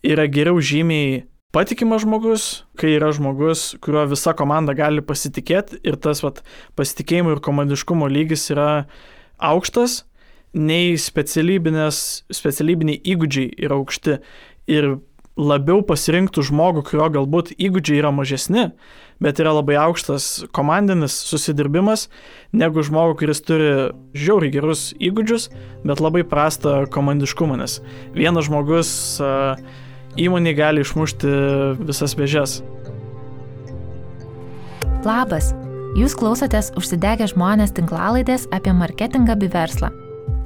yra geriau žymiai patikimas žmogus, kai yra žmogus, kurio visa komanda gali pasitikėti ir tas pasitikėjimo ir komandiškumo lygis yra aukštas, nei specialybiniai įgūdžiai yra aukšti ir labiau pasirinktų žmogų, kurio galbūt įgūdžiai yra mažesni, bet yra labai aukštas komandinis susidirbimas, negu žmogų, kuris turi žiauriai gerus įgūdžius, bet labai prastą komandiškumą, nes vienas žmogus įmonė gali išmušti visas vėžes. Labas, jūs klausotės Užsidegę žmonės tinklalaidės apie marketingą bei verslą.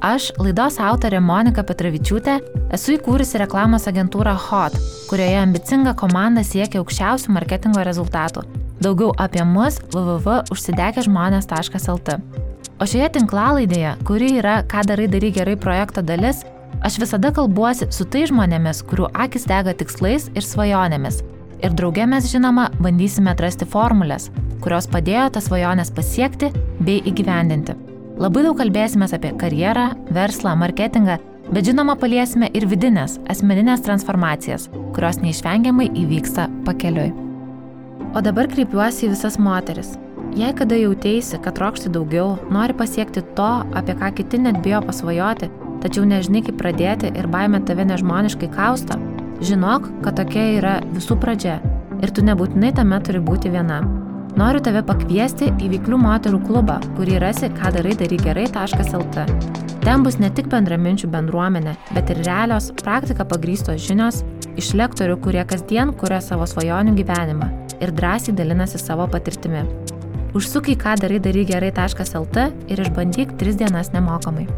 Aš, laidos autorė Monika Petravičiūtė, esu įkūrusi reklamos agentūrą HOT, kurioje ambicinga komanda siekia aukščiausių marketingo rezultatų. Daugiau apie mus www.užsidegežmonės.lt. O šioje tinklalaidėje, kuri yra Ką darai gerai projekto dalis, aš visada kalbuosi su tai žmonėmis, kurių akis dega tikslais ir svajonėmis. Ir drauge mes, žinoma, bandysime atrasti formulės, kurios padėjo tas svajonės pasiekti bei įgyvendinti. Labai daug kalbėsime apie karjerą, verslą, marketingą, bet žinoma paliesime ir vidinės, asmeninės transformacijas, kurios neišvengiamai įvyksta pakeliui. O dabar kreipiuosi į visas moteris. Jei kada jauteisi, kad trokšti daugiau, nori pasiekti to, apie ką kiti net bijo pasvajoti, tačiau nežinai kaip pradėti ir baimė tave nežmoniškai kausto, žinok, kad tokia yra visų pradžia ir tu nebūtinai tame turi būti viena. Noriu tave pakviesti į Veiklių moterų klubą, kurį rasi kadarai-gerai.lt. Ten bus ne tik bendraminčių bendruomenė, bet ir realios, praktika pagrįstos žinios iš lektorių, kurie kasdien kuria savo svajonių gyvenimą ir drąsiai dalinasi savo patirtimi. Užsuk į kadarai-gerai.lt ir išbandyk 3 dienas nemokamai.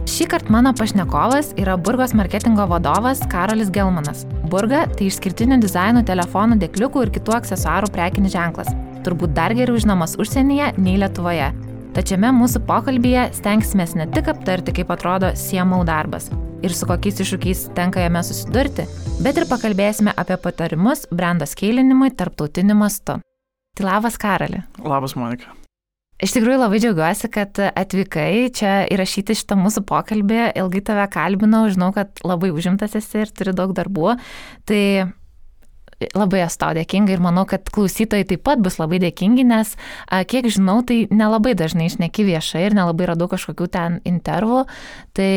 Šįkart mano pašnekovas yra Burgos marketingo vadovas Karolis Gelmanas. Burga tai išskirtinių dizainų, telefonų, dėkliukų ir kitų aksesuarų prekinis ženklas. Turbūt dar geriau žinomas užsienyje nei Lietuvoje. Tačiame mūsų pokalbyje stengsimės ne tik aptarti, kaip atrodo CMO darbas ir su kokiais iššūkiais tenka jame susidurti, bet ir pakalbėsime apie patarimus brendo skeilinimui tarptautiniu mastu. Tai labas, Karoli. Labas, Monika. Iš tikrųjų labai džiaugiuosi, kad atvykai čia įrašyti šitą mūsų pokalbį, ilgai tave kalbinau, žinau, kad labai užimtas esi ir turi daug darbų, tai labai esu tau dėkinga ir manau, kad klausytojai taip pat bus labai dėkingi, nes kiek žinau, tai nelabai dažnai šneki viešai ir nelabai radau kažkokių ten intervų, tai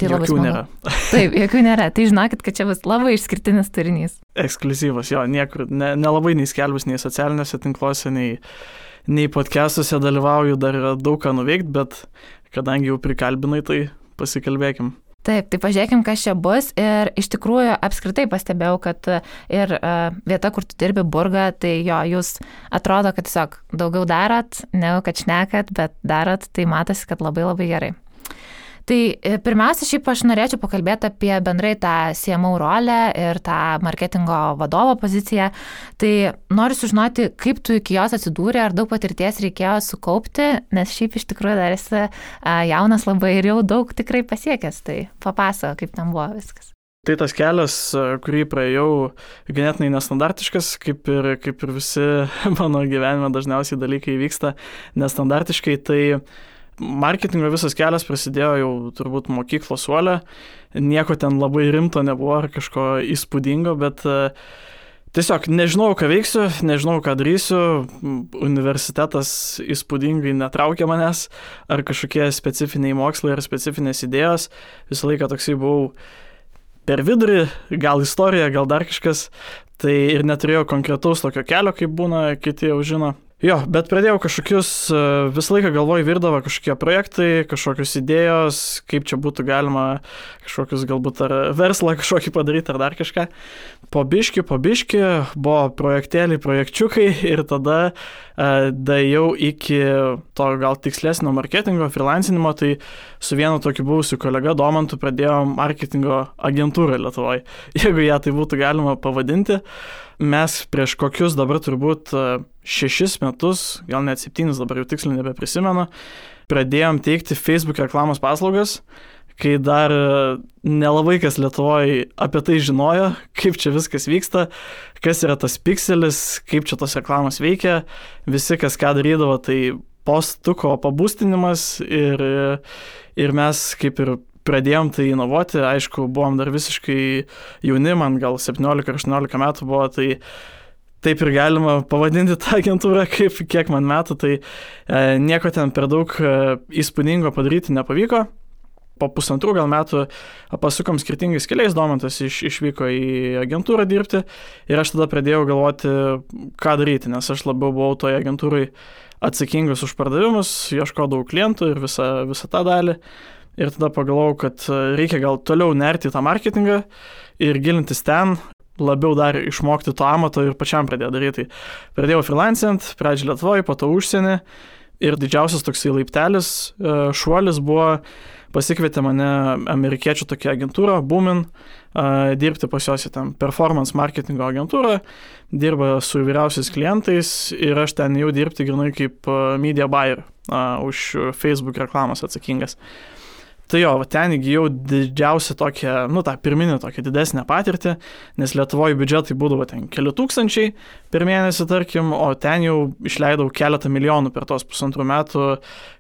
labai smagu. Nėra. Taip, jokių nėra, tai žinokit, kad čia bus labai išskirtinis turinys. Ekskliuzyvas, jo, niekur, nelabai nei skelbus, nei socialiniuose tinkluose, nei podcastuose dalyvauju, dar yra daug ką nuveikti, bet kadangi jau prikalbinai, tai pasikalbėkim. Taip, tai pažiūrėkim, kas čia bus ir iš tikrųjų apskritai pastebėjau, kad ir vieta, kur tu dirbi Burga, tai jo, jūs atrodo, kad tiesiog daugiau darot, negu kad šnekat, bet darot, tai matosi, kad labai labai gerai. Tai pirmiausia, šiaip aš norėčiau pakalbėti apie bendrai tą CMO rolę ir tą marketingo vadovo poziciją. Tai noriu sužinoti, kaip tu iki jos atsidūrė, ar daug patirties reikėjo sukaupti, nes šiaip iš tikrųjų dar esi jaunas labai ir jau daug tikrai pasiekęs. Tai papasako, kaip ten buvo viskas. Tai tas kelias, kurį praėjau, ganėtinai nestandartiškas, kaip ir visi mano gyvenime dažniausiai dalykai vyksta nestandartiškai, tai marketingo visas kelias prasidėjo jau turbūt mokyklos suole, nieko ten labai rimto nebuvo ar kažko įspūdingo, bet tiesiog nežinau, ką veiksiu, nežinau, ką darysiu, universitetas įspūdingai netraukė manęs, ar kažkokie specifiniai mokslai ar specifinės idėjos, visą laiką toksai buvau per vidurį, gal istorija, gal dar kažkas, tai ir neturėjau konkretaus tokio kelio, kaip būna, kiti jau žino. Jo, bet pradėjau kažkokius, visą laiką galvoj virdavo kažkokie projektai, kažkokios idėjos, kaip čia būtų galima kažkokius galbūt ar verslą kažkokį padaryti ar dar kažką. Po biški buvo projektėliai, projekčiukai ir tada daėjau iki to gal tikslesnio marketingo, freelancinimo, tai su vienu tokiu buvusiu kolega Domantu pradėjom marketingo agentūrą Lietuvoje, jeigu ją tai būtų galima pavadinti. Mes prieš kokius dabar turbūt 6 metus, gal net 7, dabar jau tiksliai nebeprisimenu, pradėjom teikti Facebook reklamos paslaugas, kai dar nelabai kas Lietuvoje apie tai žinojo, kaip čia viskas vyksta, kas yra tas pikselis, kaip čia tos reklamos veikia, visi kas ką darydavo, tai postuko pabūstinimas ir mes kaip ir pradėjom tai inovuoti, aišku, buvom dar visiškai jauni, man gal 17-18 metų buvo, tai taip ir galima pavadinti tą agentūrą, kiek man metų, tai nieko ten per daug įspūdingo padaryti nepavyko. Po 1,5 gal metų pasukom skirtingais keliais, Domantas išvyko į agentūrą dirbti ir aš tada pradėjau galvoti, ką daryti, nes aš labiau buvau toje agentūrai atsakingas už pardavimus, ieškodavau klientų ir visą tą dalį. Ir tada pagalvojau, kad reikia gal toliau nerti į tą marketingą ir gilintis ten, labiau dar išmokti to amato ir pačiam pradėjau daryti. Pradėjau freelancint, pradžiai Lietuvoje, po to užsienį ir didžiausias toksai laiptelis, šuolis buvo, pasikvietė mane amerikiečių tokia agentūra, Boomin, dirbti pas juos į ten performance marketingo agentūrą, dirba su įvairiausiais klientais ir aš ten jau dirbti grinai kaip media buyer, už Facebook reklamos atsakingas. Tai jo, ten įgijau didžiausią tokią, tą pirminę tokią didesnę patirtį, nes Lietuvoje biudžetai būdavo ten keli tūkstančiai per mėnesį, tarkim, o ten jau išleidau keletą milijonų per tos 1,5 metų,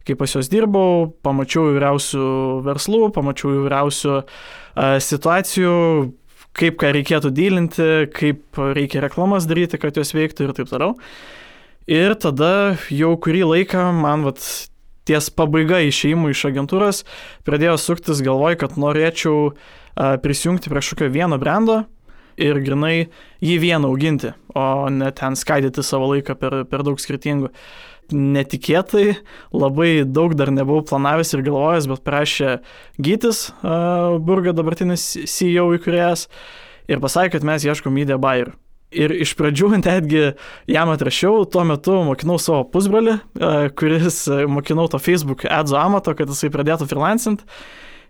kai pas juos dirbau, pamačiau įvairiausių verslų, pamačiau įvairiausių situacijų, kaip ką reikėtų dylinti, kaip reikia reklamas daryti, kad jos veiktų ir taip toliau. Ir tada jau kurį laiką man ties pabaiga išėjimų iš agentūros pradėjo suktis galvoj, kad norėčiau prisijungti prie kažkokio vieno brando ir grinai jį vieną auginti, o ne ten skaidyti savo laiką per daug skirtingų. Netikėtai, labai daug dar nebuvau planavęs ir galvojęs, bet prašė Gytis, Burga dabartinis CEO įkūrėjas, ir pasakė, kad mes ieškom media buyer. Ir iš pradžių netgi jam atrašiau, tuo metu mokinau savo pusbrolį, kuris mokinau to Facebook ads amato, kad jisai pradėtų freelancint.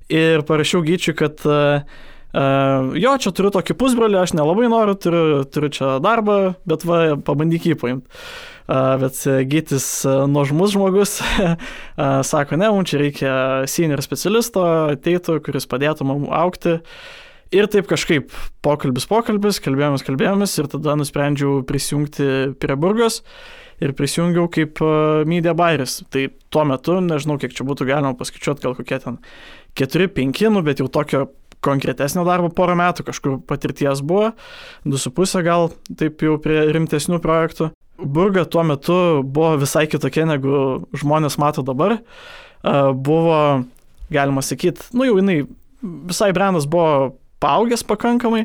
Ir parašiau Gyčiui, kad jo, čia turiu tokį pusbrolį, aš nelabai noriu, turiu čia darbą, bet pabandyk jį paimti. Bet Gytis nuožmus žmogus, sako, ne, mums čia reikia senior specialisto, ateitų, kuris padėtų mums augti. Ir taip kažkaip pokalbis, kalbėjomės ir tada nusprendžiau prisijungti prie Burgos ir prisijungiau kaip media buyeris. Tai tuo metu, nežinau, kiek čia būtų galima paskaičiuoti, gal kokie ten 4-5, bet jau tokio konkretesnio darbo 1 metų, kažkur patirties buvo, 2,5 gal, taip jau prie rimtesnių projektų. Burga tuo metu buvo visai kitokia, negu žmonės mato dabar. Buvo, galima sakyti, jau jinai, visai brandas buvo paaugęs pakankamai,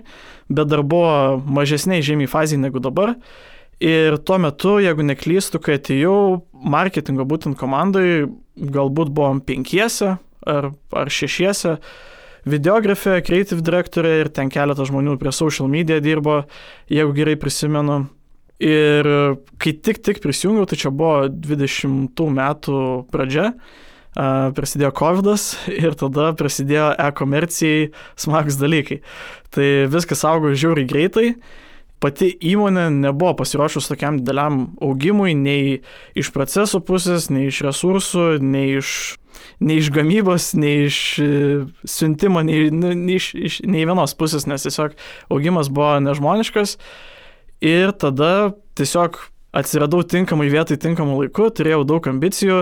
bet dar buvo mažesniai žymiai fazėje negu dabar. Ir tuo metu, jeigu neklystu, kai atėjau marketingo būtent komandai, galbūt buvom 5 ar 6, videografė, creative direktorė ir ten keletą žmonių prie social media dirbo, jeigu gerai prisimenu. Ir kai tik prisijungiau, tai čia buvo 20 metų pradžia, prasidėjo COVID'as ir tada prasidėjo e-komercijai smagus dalykai. Tai viskas augo žiauriai greitai. Pati įmonė nebuvo pasiruošus tokiam dideliam augimui, nei iš procesų pusės, nei iš resursų, nei iš gamybos, nei iš siuntimo, nei vienos pusės, nes tiesiog augimas buvo nežmoniškas. Ir tada tiesiog atsiradau tinkamai vietai, tinkamų laiku, turėjau daug ambicijų,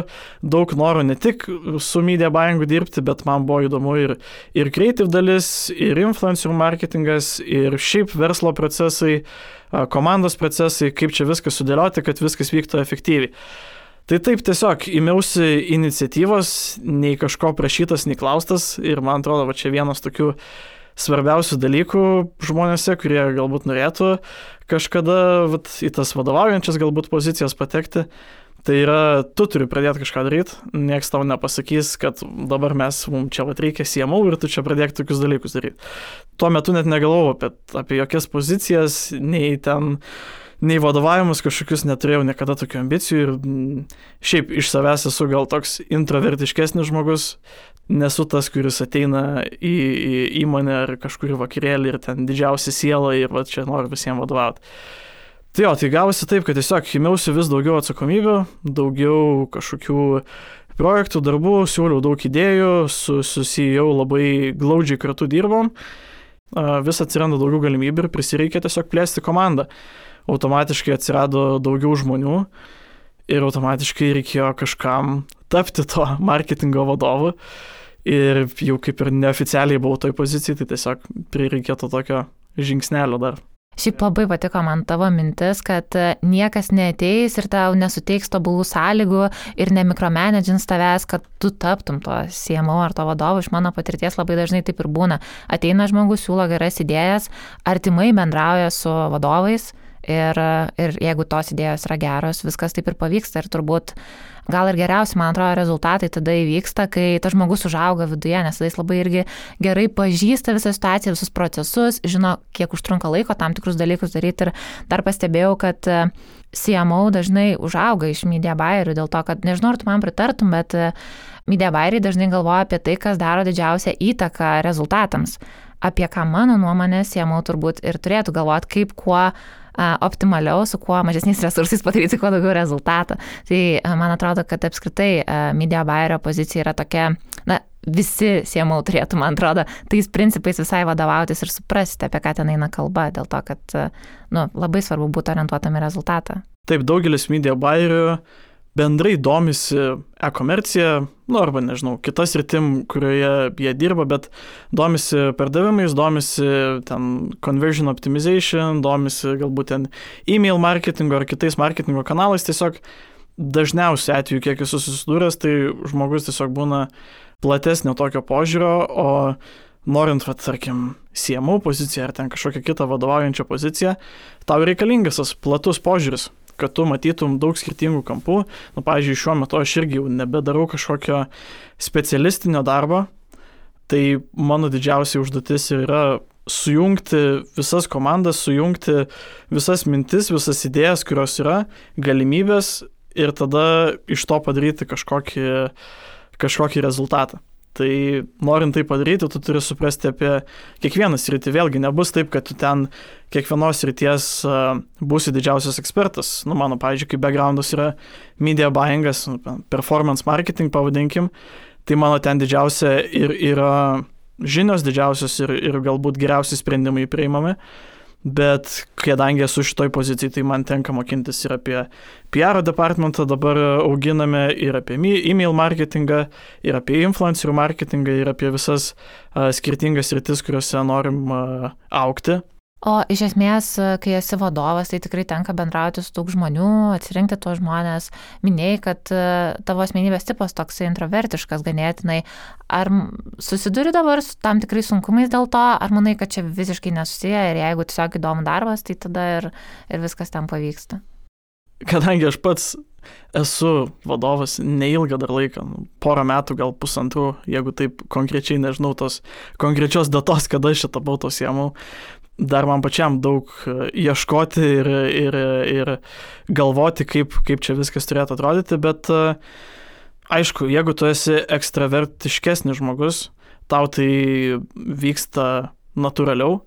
daug norų ne tik su media buyingu dirbti, bet man buvo įdomu ir creative dalis, ir influencer marketingas, ir šiaip verslo procesai, komandos procesai, kaip čia viską sudėlioti, kad viskas vyktų efektyviai. Tai taip tiesiog ėmiausi iniciatyvos, nei kažko prašytas, nei klaustas, ir man atrodo, čia vienas tokių svarbiausių dalykų žmonėse, kurie galbūt norėtų kažkada į tas vadovaujančias galbūt pozicijas patekti, tai yra, tu turi pradėti kažką daryti, nieks tau nepasakys, kad dabar mums čia reikia CMO ir tu čia pradėk tokius dalykus daryti. Tuo metu net negalvojau apie jokias pozicijas, nei vadovavimus kažkokius neturėjau niekada tokių ambicijų ir šiaip iš savęs esu gal toks introvertiškesnis žmogus, nesu tas, kuris ateina į įmonę ar kažkurį vakarėlį ir ten didžiausia siela ir čia noriu visiems vadovauti. Tai gavosi taip, kad tiesiog ėmiausi vis daugiau atsakomybių, daugiau kažkokių projektų, darbų, siūliau daug idėjų, su CEO labai glaudžiai kartu dirbom, vis atsiranda daugiau galimybių ir prisireikia tiesiog plėsti komandą. Automatiškai atsirado daugiau žmonių ir automatiškai reikėjo kažkam tapti to marketingo vadovu. ir jau kaip ir neoficialiai buvau toj pozicijai, tai tiesiog prireikėtų tokio žingsnelio dar. Šiaip labai patiko man tavo mintis, kad niekas neateis ir tau nesuteiks tobulų sąlygų ir nemikromanagins tavęs, kad tu taptum to CMO ar to vadovu. Iš mano patirties labai dažnai taip ir būna. Ateina žmogus, siūlo geras idėjas, artimai bendrauja su vadovais ir jeigu tos idėjos yra geros, viskas taip ir pavyksta ir turbūt gal ir geriausi, man atrodo, rezultatai tada įvyksta, kai tas žmogus užauga viduje, nes jis labai irgi gerai pažįsta visą situaciją, visus procesus, žino, kiek užtrunka laiko tam tikrus dalykus daryti ir dar pastebėjau, kad CMO dažnai užauga iš media buyerių dėl to, kad nežinau, ar tu man pritartum, bet media buyeriai dažnai galvoja apie tai, kas daro didžiausią įtaką rezultatams. Apie ką mano nuomonė CMO turbūt ir turėtų galvoti, kaip kuo optimaliau, su kuo mažesniais resursais padaryti kuo daugiau rezultatą. Tai man atrodo, kad apskritai media buyerio pozicija yra tokia, visi CMO turėtų, man atrodo, tais principais visai vadovautis ir suprasti, apie ką ten eina kalba, dėl to, kad labai svarbu būti orientuotam į rezultatą. Taip, daugelis media buyerių bendrai domisi e-komercija, arba nežinau, kitas sritim, kurioje jie dirba, bet domisi pardavimais, domisi ten conversion optimization, domisi galbūt ten email marketingo ar kitais marketingo kanalais. Tiesiog dažniausiai atveju, kiek esu susidūręs, tai žmogus tiesiog būna platesnio tokio požiūrio, o norint, tarkim, CMO poziciją ar ten kažkokią kitą vadovaujančią poziciją, tau reikalingas tas platus požiūris, kad tu matytum daug skirtingų kampų. Pavyzdžiui, šiuo metu aš irgi jau nebedarau kažkokio specialistinio darbo, tai mano didžiausia užduotis yra sujungti visas komandas, sujungti visas mintis, visas idėjas, kurios yra, galimybės ir tada iš to padaryti kažkokį rezultatą. Tai norint tai padaryti, tu turi suprasti apie kiekvieną sritį. Vėlgi, nebus taip, kad tu ten kiekvienos srities būsi didžiausias ekspertas. Mano, pavyzdžiui, kaip backgroundas yra media buyingas, performance marketing pavadinkim, tai mano ten didžiausia ir yra žinios didžiausios ir galbūt geriausi sprendimai priimami. Bet kadangi esu šitoj pozicijai, tai man tenka mokintis ir apie PR departmentą dabar auginame, ir apie email marketingą, ir apie influencerių marketingą, ir apie visas skirtingas sritis, kuriuose norim augti. O iš esmės, kai esi vadovas, tai tikrai tenka bendrauti su daug žmonių, atsirinkti tuos žmonės. Minėjai, kad tavo asmenybės tipas toks introvertiškas ganėtinai. Ar susiduri dabar su tam tikrai sunkumais dėl to, ar manai, kad čia visiškai nesusiję ir jeigu tiesiog įdomu darbas, tai tada ir viskas ten pavyksta? Kadangi aš pats esu vadovas neilgą dar laiką, porą metų, gal pusantrų, jeigu taip konkrečiai nežinau tos konkrečios datos, kada aš tapau to CMO, dar man pačiam daug ieškoti ir galvoti, kaip čia viskas turėtų atrodyti, bet aišku, jeigu tu esi ekstravertiškesnis žmogus, tau tai vyksta natūraliau,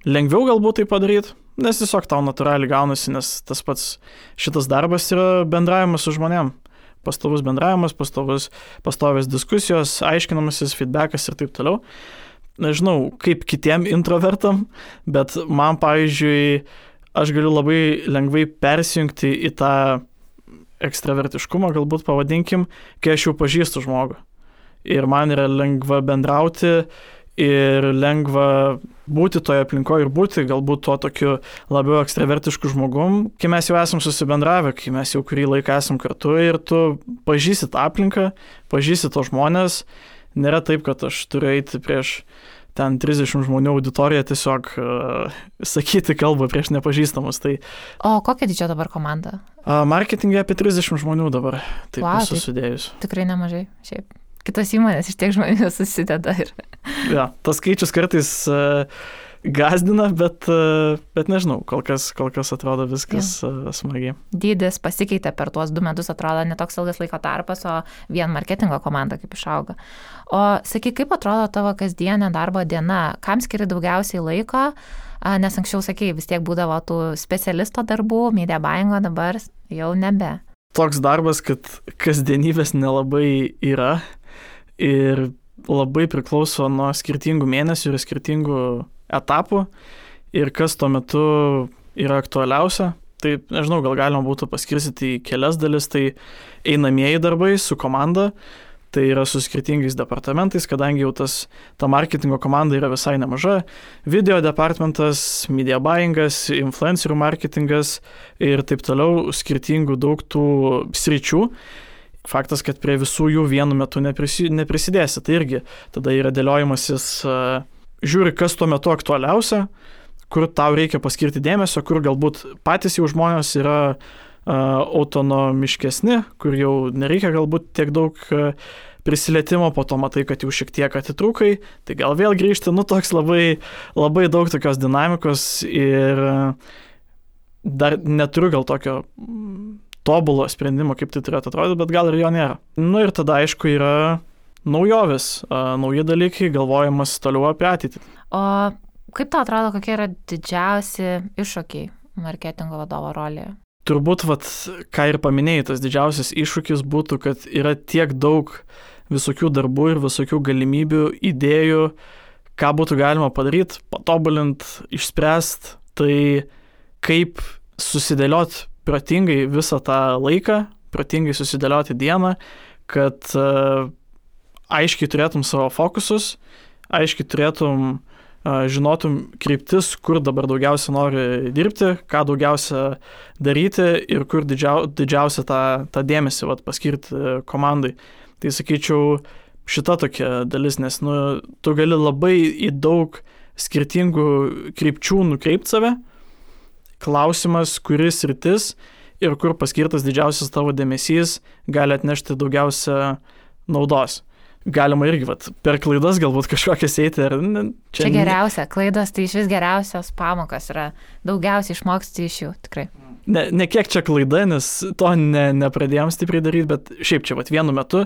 lengviau galbūt tai padaryti, nes tiesiog tau natūraliai gaunasi, nes tas pats šitas darbas yra bendravimas su žmonėm. Pastovus bendravimas, pastovios diskusijos, aiškinamasis, feedbackas ir taip toliau. Nežinau, kaip kitiem introvertam, bet man, pavyzdžiui, aš galiu labai lengvai persijungti į tą ekstravertiškumą, galbūt pavadinkim, kai aš jau pažįstu žmogų. Ir man yra lengva bendrauti ir lengva būti toje aplinkoje ir būti galbūt tuo tokiu labiau ekstravertišku žmogum, kai mes jau esam susibendravę, kai mes jau kurį laiką esam kartu ir tu pažįsti tą aplinką, pažįsti to žmonės. Nėra taip, kad aš turiu eiti prieš ten 30 žmonių auditoriją tiesiog sakyti kalbą prieš nepažįstamus. Tai... O kokia didžio dabar komanda? Marketingė apie 30 žmonių dabar, taip visus sudėjus. Tikrai nemažai, šiaip. Kitos įmonės iš tiek žmonių susideda ir... Ja, tas skaičius kartais gazdina, bet nežinau, kol kas atrodo viskas smagiai. Dydis pasikeitė per tuos 2 metus, atrodo netoks ilgas laiko tarpas, o vien marketingo komanda kaip išauga. O sakyk, kaip atrodo tavo kasdienė darbo diena? Kam skiri daugiausiai laiko? Nes anksčiau, sakei, vis tiek būdavo tų specialisto darbų, media buyingo, dabar jau nebe. Toks darbas, kad kasdienybės nelabai yra ir labai priklauso nuo skirtingų mėnesių ir skirtingų etapų ir kas tuo metu yra aktualiausia. Tai, nežinau, gal galima būtų paskirstyti į kelias dalis, tai einamieji darbai su komanda, tai yra su skirtingais departamentais, kadangi jau ta marketingo komanda yra visai nemaža. Video departamentas, media buyingas, influencerių marketingas ir taip toliau, skirtingų daug tų sričių. Faktas, kad prie visų jų vienu metu neprisidėsi. Tai irgi tada yra dėliojimasis, žiūri, kas tuo metu aktualiausia, kur tau reikia paskirti dėmesio, kur galbūt patys jau žmonės yra autonomiškesni, kur jau nereikia galbūt tiek daug prisilietimo, po to matai, kad jau šiek tiek atitrūkai, tai gal vėl grįžti, toks labai, labai daug tokios dinamikos ir dar neturiu gal tokio tobulo sprendimo, kaip tai turėtų atrodyti, bet gal ir jo nėra. Ir tada, aišku, yra naujovės, nauji dalykai, galvojimas toliau apie ateitį. O kaip tau atrodo, kokie yra didžiausi iššūkiai marketingo vadovo rolėje? Turbūt, ką ir paminėjai, tas didžiausias iššūkis būtų, kad yra tiek daug visokių darbų ir visokių galimybių, idėjų, ką būtų galima padaryti, patobulinti, išspręsti, tai kaip susidėlioti protingai visą tą laiką, protingai susidėlioti dieną, kad aiškiai turėtum savo fokusus, aiškiai turėtum, žinotum kryptis, kur dabar daugiausia nori dirbti, ką daugiausia daryti ir kur didžiausia tą dėmesį paskirti komandai. Tai sakyčiau, šita tokia dalis, nes tu gali labai į daug skirtingų krypčių nukreipti save. Klausimas, kuris sritis ir kur paskirtas didžiausias tavo dėmesys gali atnešti daugiausia naudos. Galima irgi per klaidas galbūt kažkokias eiti. Čia geriausia, klaidos tai iš vis geriausios pamokas yra, daugiausiai išmoksti iš jų, tikrai. Ne kiek čia klaida, nes to nepradėjom stipriai daryti, bet šiaip čia vienu metu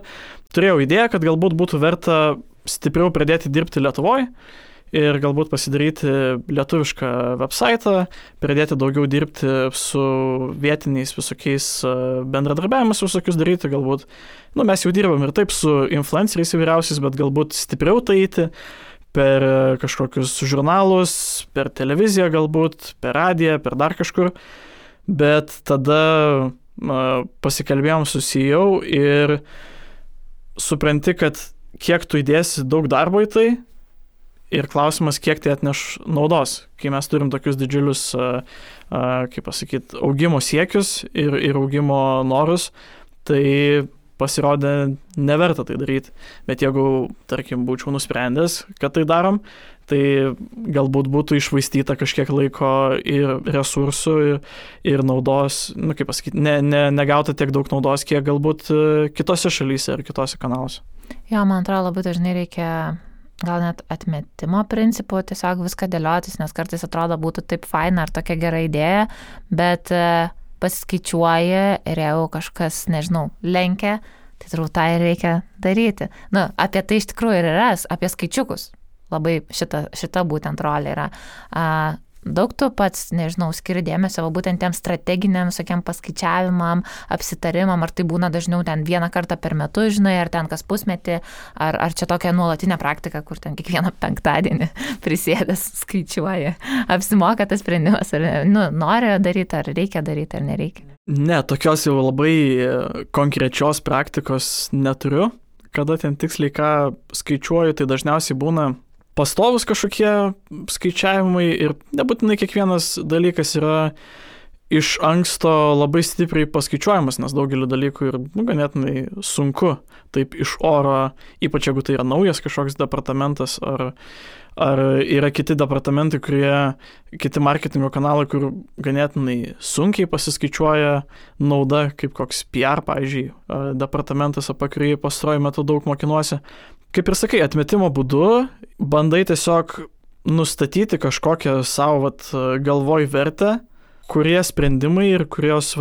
turėjau idėją, kad galbūt būtų verta stipriau pradėti dirbti Lietuvoje ir galbūt pasidaryti lietuvišką websitą, pradėti daugiau dirbti su vietiniais visokiais bendradarbiavimus visokius daryti, galbūt, mes jau dirbam ir taip su influenceriais įvairiausiais, bet galbūt stipriau tai eiti per kažkokius žurnalus, per televiziją galbūt, per radiją, per dar kažkur, bet tada pasikalbėjom su CEO ir supranti, kad kiek tu įdėsi daug darbo į tai, ir klausimas, kiek tai atneš naudos, kai mes turim tokius didžiulius, augimo siekius ir augimo norus, tai pasirodė neverta tai daryti. Bet jeigu, tarkim, būčiau nusprendęs, kad tai darom, tai galbūt būtų iššvaistyta kažkiek laiko ir resursų ir naudos, negauta tiek daug naudos, kiek galbūt kitose šalyse ir kitose kanaluose. Jo, man atrodo, labai dažnai reikia gal net atmetimo principų, tiesiog viską dėliotis, nes kartais atrodo būtų taip faina ar tokia gera idėja, bet pasiskaičiuoji ir jeigu kažkas, lenkia, tai turbūt tą ir reikia daryti. Apie tai iš tikrųjų ir yra, apie skaičiukus. Labai šita būtent rolė yra. Daug tu pats, skiri dėmesio būtent tiem strateginiam visokiam paskaičiavimam, apsitarimam, ar tai būna dažniau ten vieną kartą per metus, ar ten kas pusmetį, ar čia tokia nuolatinė praktika, kur ten kiekvieną penktadienį prisėdęs skaičiuoja. Apsimoka tas sprendimas, ar nori daryti, ar reikia daryti, ar nereikia. Ne, tokios jau labai konkrečios praktikos neturiu. Kada ten tiksliai ką skaičiuoju, tai dažniausiai būna pastovus kažkokie skaičiavimai ir nebūtinai kiekvienas dalykas yra iš anksto labai stipriai paskaičiuojamas, nes daugelį dalykų ir ganėtinai sunku taip iš oro, ypač jeigu tai yra naujas kažkoks departamentas ar yra kiti departamentai, kiti marketingo kanalai, kur ganėtinai sunkiai pasiskaičiuoja nauda, kaip koks PR, pavyzdžiui, departamentas, apie kurį pastaruoju metu daug mokinuosi. Kaip ir sakai, atmetimo būdu bandai tiesiog nustatyti kažkokią savo galvoj vertę, kurie sprendimai ir kurios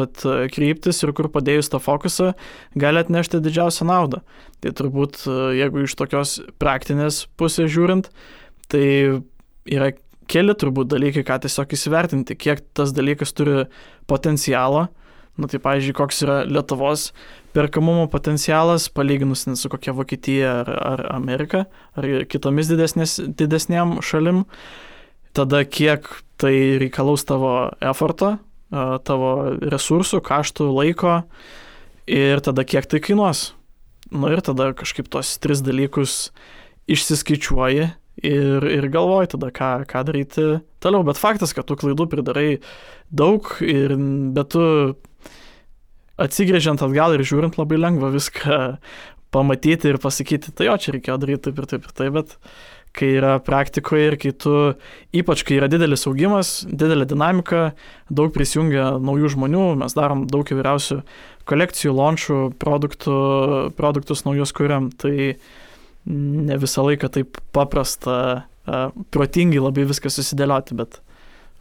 kryptis ir kur padėjus tą fokusą gali atnešti didžiausią naudą. Tai turbūt, jeigu iš tokios praktinės pusės žiūrint, tai yra keli turbūt dalykai, ką tiesiog įsivertinti, kiek tas dalykas turi potencialo. Tai pavyzdžiui, koks yra Lietuvos perkamumo potencialas, palyginus su kokia Vokietija ar Amerika, ar kitomis didesnėm šalim. Tada kiek tai reikalaus tavo eforto, tavo resursų, kaštų, laiko ir tada kiek tai kainuos. Ir tada kažkaip tos 3 dalykus išsiskaičiuoji ir galvoji tada, ką daryti toliau. Bet faktas, kad tu klaidų pridarai daug, bet tu atsigrėžiant atgal ir žiūrint labai lengva viską pamatyti ir pasakyti, tai jo, čia reikėjo daryti taip ir taip ir taip, bet kai yra praktikoje ir kai tu, ypač kai yra didelis augimas, didelė dinamika, daug prisijungia naujų žmonių, mes darom daug įvairiausių kolekcijų, launchų, produktus naujus kuriam, tai ne visą laiką taip paprasta, protingai labai viską susidėlioti, bet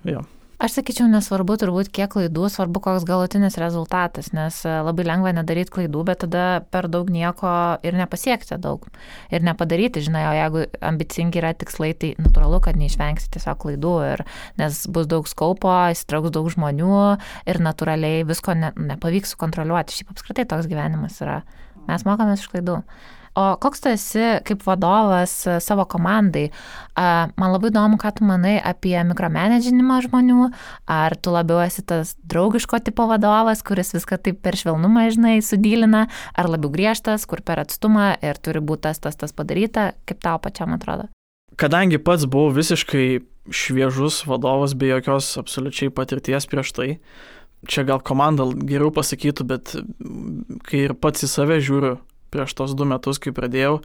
jo. Aš sakyčiau, nesvarbu turbūt kiek klaidų, svarbu koks galutinis rezultatas, nes labai lengva nedaryti klaidų, bet tada per daug nieko ir nepasiekti daug. Ir nepadaryti, žinai, o jeigu ambicingi yra tikslai, tai natūralu, kad neišvengsi tiesiog klaidų, nes bus daug skaupo, įsitrauks daug žmonių ir natūraliai visko nepavyks sukontroliuoti. Šiaip apskritai toks gyvenimas yra. Mes mokomės iš klaidų. O koks tu esi kaip vadovas savo komandai? Man labai įdomu, ką tu manai apie mikromanedžinimą žmonių. Ar tu labiau esi tas draugiško tipo vadovas, kuris viską taip per švelnumą, žinai, sudylina, ar labiau griežtas, kur per atstumą ir turi būti tas padaryta? Kaip tau pačiam atrodo? Kadangi pats buvau visiškai šviežus vadovas, be jokios absoliučiai patirties prieš tai, čia gal komanda geriau pasakytų, bet kai ir pats į save žiūriu, prieš tos 2 metus, kai pradėjau,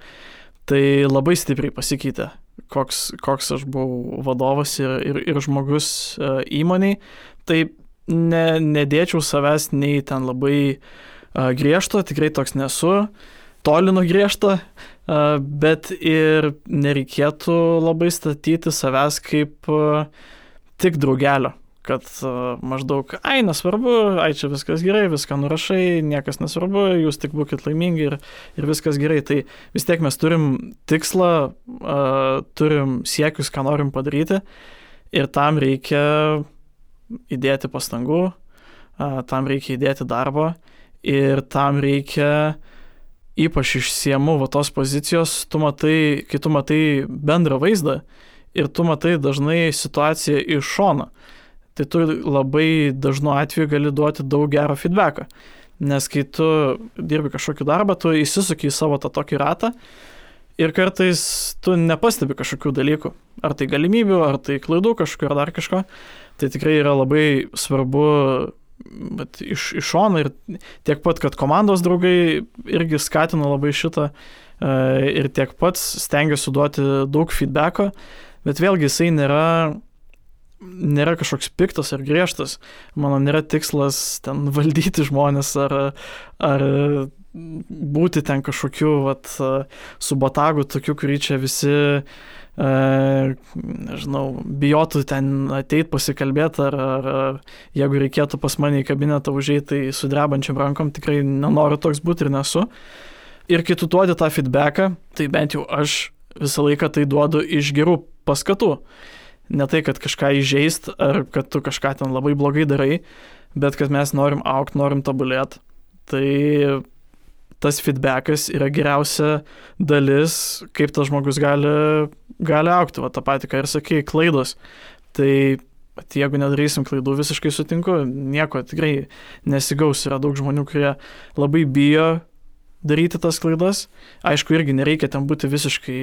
tai labai stipriai pasikeitė, koks aš buvau vadovas ir žmogus įmoniai. Tai nedėčiau savęs nei ten labai griežto, tikrai toks nesu, toli nuo griežto, bet ir nereikėtų labai statyti savęs kaip tik draugelio. Kad maždaug, nesvarbu, čia viskas gerai, viską nurašai, niekas nesvarbu, jūs tik būkit laimingi ir viskas gerai. Tai vis tiek mes turim tikslą, turim siekius, ką norim padaryti ir tam reikia įdėti pastangų, tam reikia įdėti darbo ir tam reikia, ypač išsiemu tos pozicijos, kai tu matai bendrą vaizdą ir tu matai dažnai situaciją iš šono. Tai tu labai dažnu atveju gali duoti daug gero feedbacką. Nes kai tu dirbi kažkokį darbą, tu įsisuki į savo tą tokį ratą ir kartais tu nepastebi kažkokių dalykų. Ar tai galimybių, ar tai klaidų kažkokių, ar dar kažko. Tai tikrai yra labai svarbu iš šono ir tiek pat, kad komandos draugai irgi skatino labai šitą ir tiek pats stengiuosi duoti daug feedbacko, bet vėlgi jisai nėra kažkoks piktas ar griežtas. Mano nėra tikslas ten valdyti žmonės ar būti ten kažkokiu su botagu tokiu, kurį čia visi bijotų ten ateit pasikalbėti ar jeigu reikėtų pas mane į kabinetą užeiti, tai su drebančiam rankom tikrai nenoriu toks būti ir nesu. Ir kai tu duodi tą feedbacką, tai bent jau aš visą laiką tai duodu iš gerų paskatų. Ne tai, kad kažką įžeist, ar kad tu kažką ten labai blogai darai, bet kad mes norim augti, norim tobulėti. Tai tas feedbackas yra geriausia dalis, kaip tas žmogus gali augti. Va, tą patį, ką ir sakai, klaidos. Tai jeigu nedarysim klaidų, visiškai sutinku, nieko tikrai nesigaus. Yra daug žmonių, kurie labai bijo daryti tas klaidas. Aišku, irgi nereikia ten būti visiškai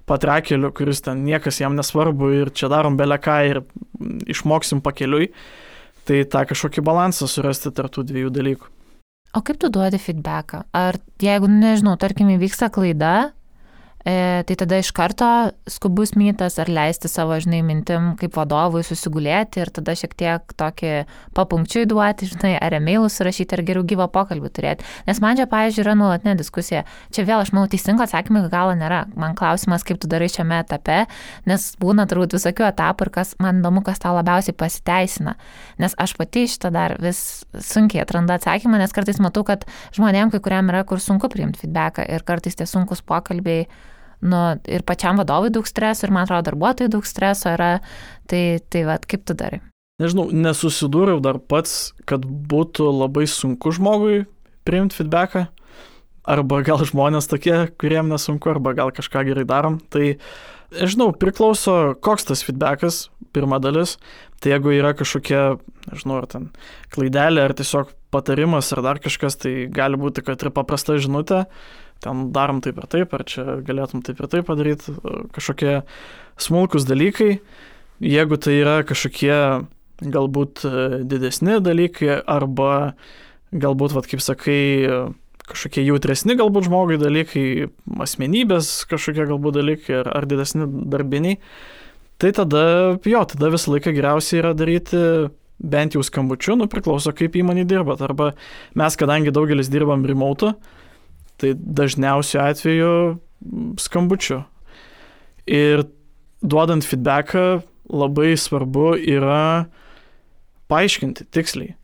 patrakeliu, kuris ten niekas jam nesvarbu ir čia darom beleką ir išmoksim pakeliui. Tai tą kažkokį balansą surasti tarp tų 2 dalykų. O kaip tu duodi feedbacką? Ar jeigu, nežinau, tarkim, įvyksta klaida, tai tada iš karto skubus mytas ar leisti savo, žinai, mintim kaip vadovui susigulėti ir tada šiek tiek tokį papunkčiui duoti, žinai, ar emailus surašyti, ar geriau gyvą pokalbį turėti. Nes man čia, pavyzdžiui, yra nuolatinė diskusija. Čia vėl, aš manau, teisingo atsakymą iki galo nėra. Man klausimas, kaip tu darai šiame etape, nes būna turbūt visokių etapų ir man įdomu, kas tau labiausiai pasiteisina. Nes aš pati šitą dar vis sunkiai atrandu atsakymą, nes kartais matau, kad žmonėm, kai kuriam yra, kur sunku priimti feedbacką ir kartais tie sunkus pokalbiai ir pačiam vadovui daug streso, ir man atrodo darbuotojai daug streso yra, tai kaip tu darai? Nežinau, nesusidūriau dar pats, kad būtų labai sunku žmogui priimti feedbacką, arba gal žmonės tokie, kuriem nesunku, arba gal kažką gerai darom, tai nežinau, priklauso koks tas feedbackas, pirma dalis, tai jeigu yra kažkokia, nežinau, ar ten klaidelė, ar tiesiog patarimas, ar dar kažkas, tai gali būti, kad ir paprasta žinutė, ten darom taip ir taip, ar čia galėtum taip ir taip padaryti, kažkokie smulkus dalykai, jeigu tai yra kažkokie galbūt didesni dalykai, arba galbūt, kaip sakai, kažkokie jautresni galbūt žmogui dalykai, asmenybės kažkokie galbūt dalykai, ar didesni darbiniai, tai tada visą laiką geriausiai yra daryti bent jau skambučiu, priklauso kaip įmonė dirbat, arba mes, kadangi daugelis dirbam remote, tai dažniausiu atveju skambučiu. Ir duodant feedbacką labai svarbu yra paaiškinti tiksliai.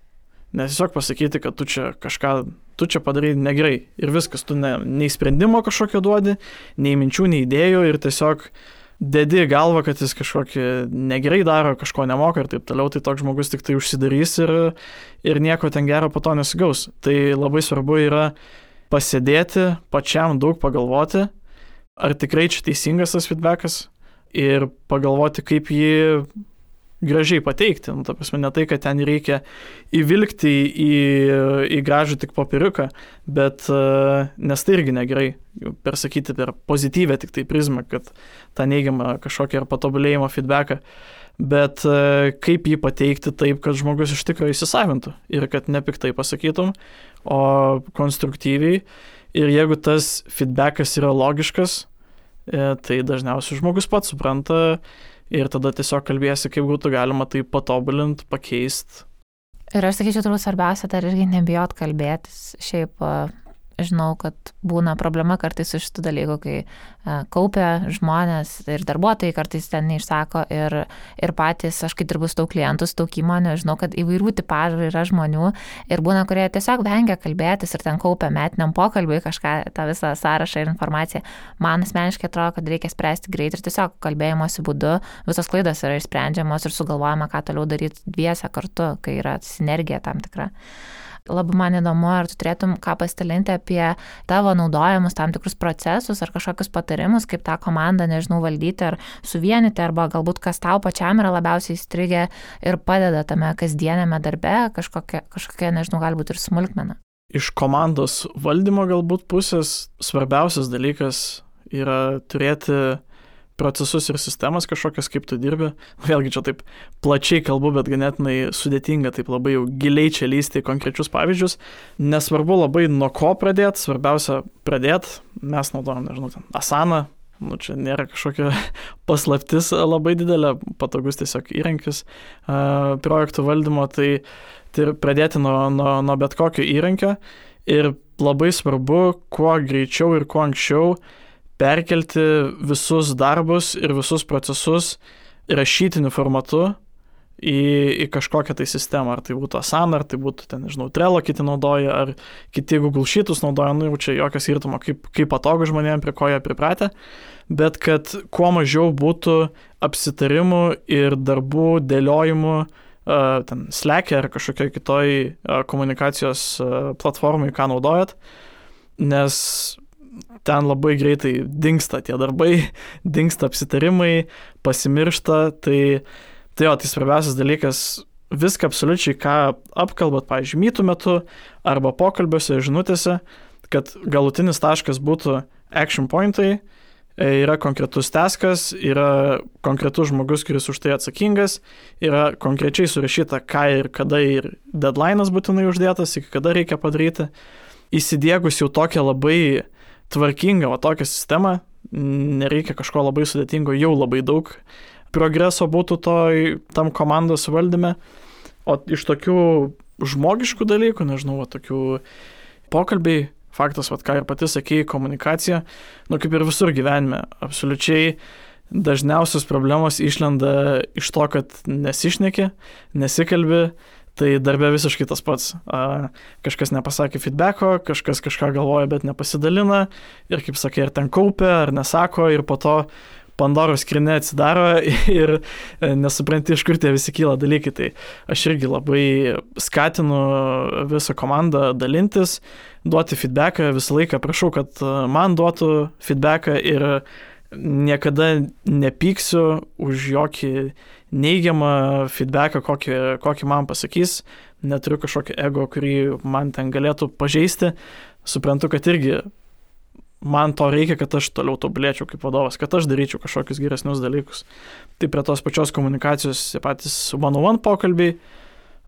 Nes tiesiog pasakyti, kad tu čia padarai negerai ir viskas, tu nei sprendimo kažkokio duodi, nei minčių, nei idėjų ir tiesiog dedi galvą, kad jis kažkokį negerai daro, kažko nemoka ir taip toliau, tai toks žmogus tik tai užsidarys ir nieko ten gero po to nesigaus. Tai labai svarbu yra pasėdėti, pačiam daug pagalvoti, ar tikrai čia teisingas tas feedbackas ir pagalvoti, kaip jį gražiai pateikti. Ta prasme, ne tai, kad ten reikia įvilkti į gražų tik popieriuką, bet nes tai irgi negerai persakyti per pozityvę tik tai prizmą, kad tą neigiamą kažkokią ar patobulėjimo feedbacką, bet kaip jį pateikti taip, kad žmogus iš tikrųjų įsisavintų ir kad nepiktai pasakytum, o konstruktyviai. Ir jeigu tas feedbackas yra logiškas, tai dažniausiai žmogus pats supranta ir tada tiesiog kalbėsi, kaip būtų galima tai patobulinti, pakeisti. Ir aš sakyčiau, turbūt svarbiausia dar irgi nebijot kalbėtis. Šiaip žinau, kad būna problema kartais su šitų dalykų, kai kaupia žmonės ir darbuotojai kartais ten neišsako ir patys, aš kai dirbu su daug klientų, su daug įmonių, žinau, kad įvairių tipažų yra žmonių ir būna, kurie tiesiog vengia kalbėtis ir ten kaupia metiniam pokalbiui kažką, tą visą sąrašą ir informaciją. Man asmeniškai atrodo, kad reikia spręsti greit ir tiesiog kalbėjimosi būdu visos klaidos yra išsprendžiamos ir sugalvojama, ką toliau daryti dviese kartu, kai yra sinergija tam tikra. Labai man įdomu, ar tu turėtum ką pasidalinti apie tavo naudojamus tam tikrus procesus ar kažkokius patarimus, kaip tą komandą, nežinau, valdyti ar suvienyti, arba galbūt kas tau pačiam yra labiausiai įstrigę ir padeda tame kasdienėme darbe, kažkokia, nežinau, galbūt ir smulkmena. Iš komandos valdymo galbūt pusės svarbiausias dalykas yra turėti procesus ir sistemas kažkokias, kaip tu dirbi. Vėlgi čia taip plačiai kalbu, bet ganėtinai sudėtinga, taip labai jau giliai čia lysti į konkrečius pavyzdžius. Nesvarbu labai nuo ko pradėti, svarbiausia pradėti. Mes naudojam, nežinau, Asana, čia nėra kažkokia paslaptis labai didelė, patogus tiesiog įrankis projektų valdymo, tai pradėti nuo bet kokio įrankio ir labai svarbu, kuo greičiau ir kuo anksčiau perkelti visus darbus ir visus procesus rašytiniu formatu į kažkokią tai sistemą, ar tai būtų Asana, ar tai būtų, nežinau, Trello kiti naudoja, ar kiti Google Sheetus naudoja, jau čia jokio skirtumo, kaip patogu žmonėms, prie ko jie pripratę, bet kad kuo mažiau būtų apsitarimų ir darbų dėliojimų Slack'e ar kažkokioj kitoj komunikacijos platformai, ką naudojat, nes ten labai greitai dingsta tie darbai, dingsta apsitarimai, pasimiršta, tai svarbiausias dalykas, viską absoliučiai, ką apkalbat, pavyzdžiui, mytų metu arba pokalbiuose, žinutėse, kad galutinis taškas būtų action pointai, yra konkretus taskas, yra konkretus žmogus, kuris už tai atsakingas, yra konkrečiai surašyta, ką ir kada ir deadline'as būtinai uždėtas, iki kada reikia padaryti. Įsidiegus jau tokią labai tvarkingą tokią sistemą, nereikia kažko labai sudėtingo, jau labai daug progreso būtų tam komandos valdyme, o iš tokių žmogiškų dalykų, nežinau, tokių pokalbiai, faktas, ką ir pati sakei, komunikacija, kaip ir visur gyvenime, absoliučiai dažniausios problemos išlenda iš to, kad nesišneki, nesikalbi, tai darbe visiškai tas pats. Kažkas nepasakė feedbacko, kažkas kažką galvoja, bet nepasidalina ir, kaip sakė, ar ten kaupia, ar nesako ir po to Pandoros skrynia atsidaro ir nesupranti, iš kur tie visi kyla dalykai. Tai aš irgi labai skatinu visą komandą dalintis, duoti feedbacką, visą laiką prašau, kad man duotų feedbacką ir niekada nepyksiu už jokį neigiamą feedbacką, kokį man pasakys, neturiu kažkokio ego, kurį man ten galėtų pažeisti. Suprantu, kad irgi man to reikia, kad aš toliau tobulėčiau kaip vadovas, kad aš daryčiau kažkokius geresnius dalykus. Tai prie tos pačios komunikacijos patys one-on-one pokalbiai,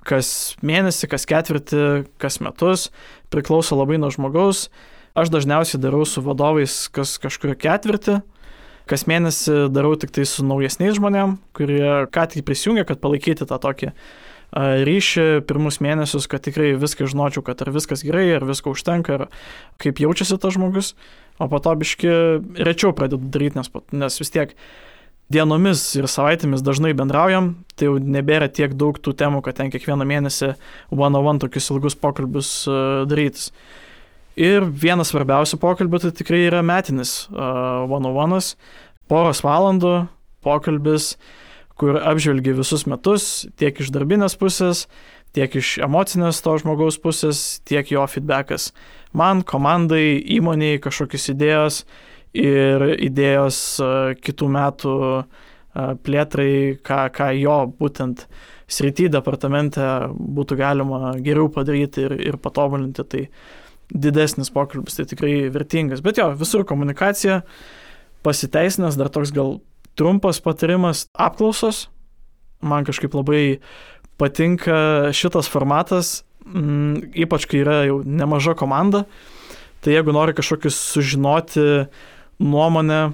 kas mėnesį, kas ketvirtį, kas metus, priklauso labai nuo žmogaus. Aš dažniausiai darau su vadovais kas kažkurio ketvirtį, kas mėnesį darau tik tai su naujesniais žmonėm, kurie ką tik prisijungia, kad palaikyti tą tokį ryšį pirmus mėnesius, kad tikrai viską žinočiau, kad ar viskas gerai, ar visko užtenka, ar kaip jaučiasi tas žmogus, o po to biški rečiau pradedu daryti, nes vis tiek dienomis ir savaitėmis dažnai bendraujam, tai jau nebėra tiek daug tų temų, kad ten kiekvieną mėnesį one-on-one tokius ilgus pokalbius darytis. Ir vienas svarbiausių pokalbių tai tikrai yra metinis one-on-one'as, poros valandų pokalbis, kur apžvelgi visus metus, tiek iš darbinės pusės, tiek iš emocinės to žmogaus pusės, tiek jo feedbackas. Man, komandai, įmoniai kažkokios idėjos ir idėjos kitų metų plėtrai, ką jo būtent srity departamente būtų galima geriau padaryti ir patobulinti. Tai didesnis pokalbis, tai tikrai vertingas. Bet jo, visur komunikacija pasiteisinęs, dar toks gal trumpas patarimas – apklausos. Man kažkaip labai patinka šitas formatas, ypač kai yra jau nemaža komanda. Tai jeigu nori kažkokius sužinoti nuomonę,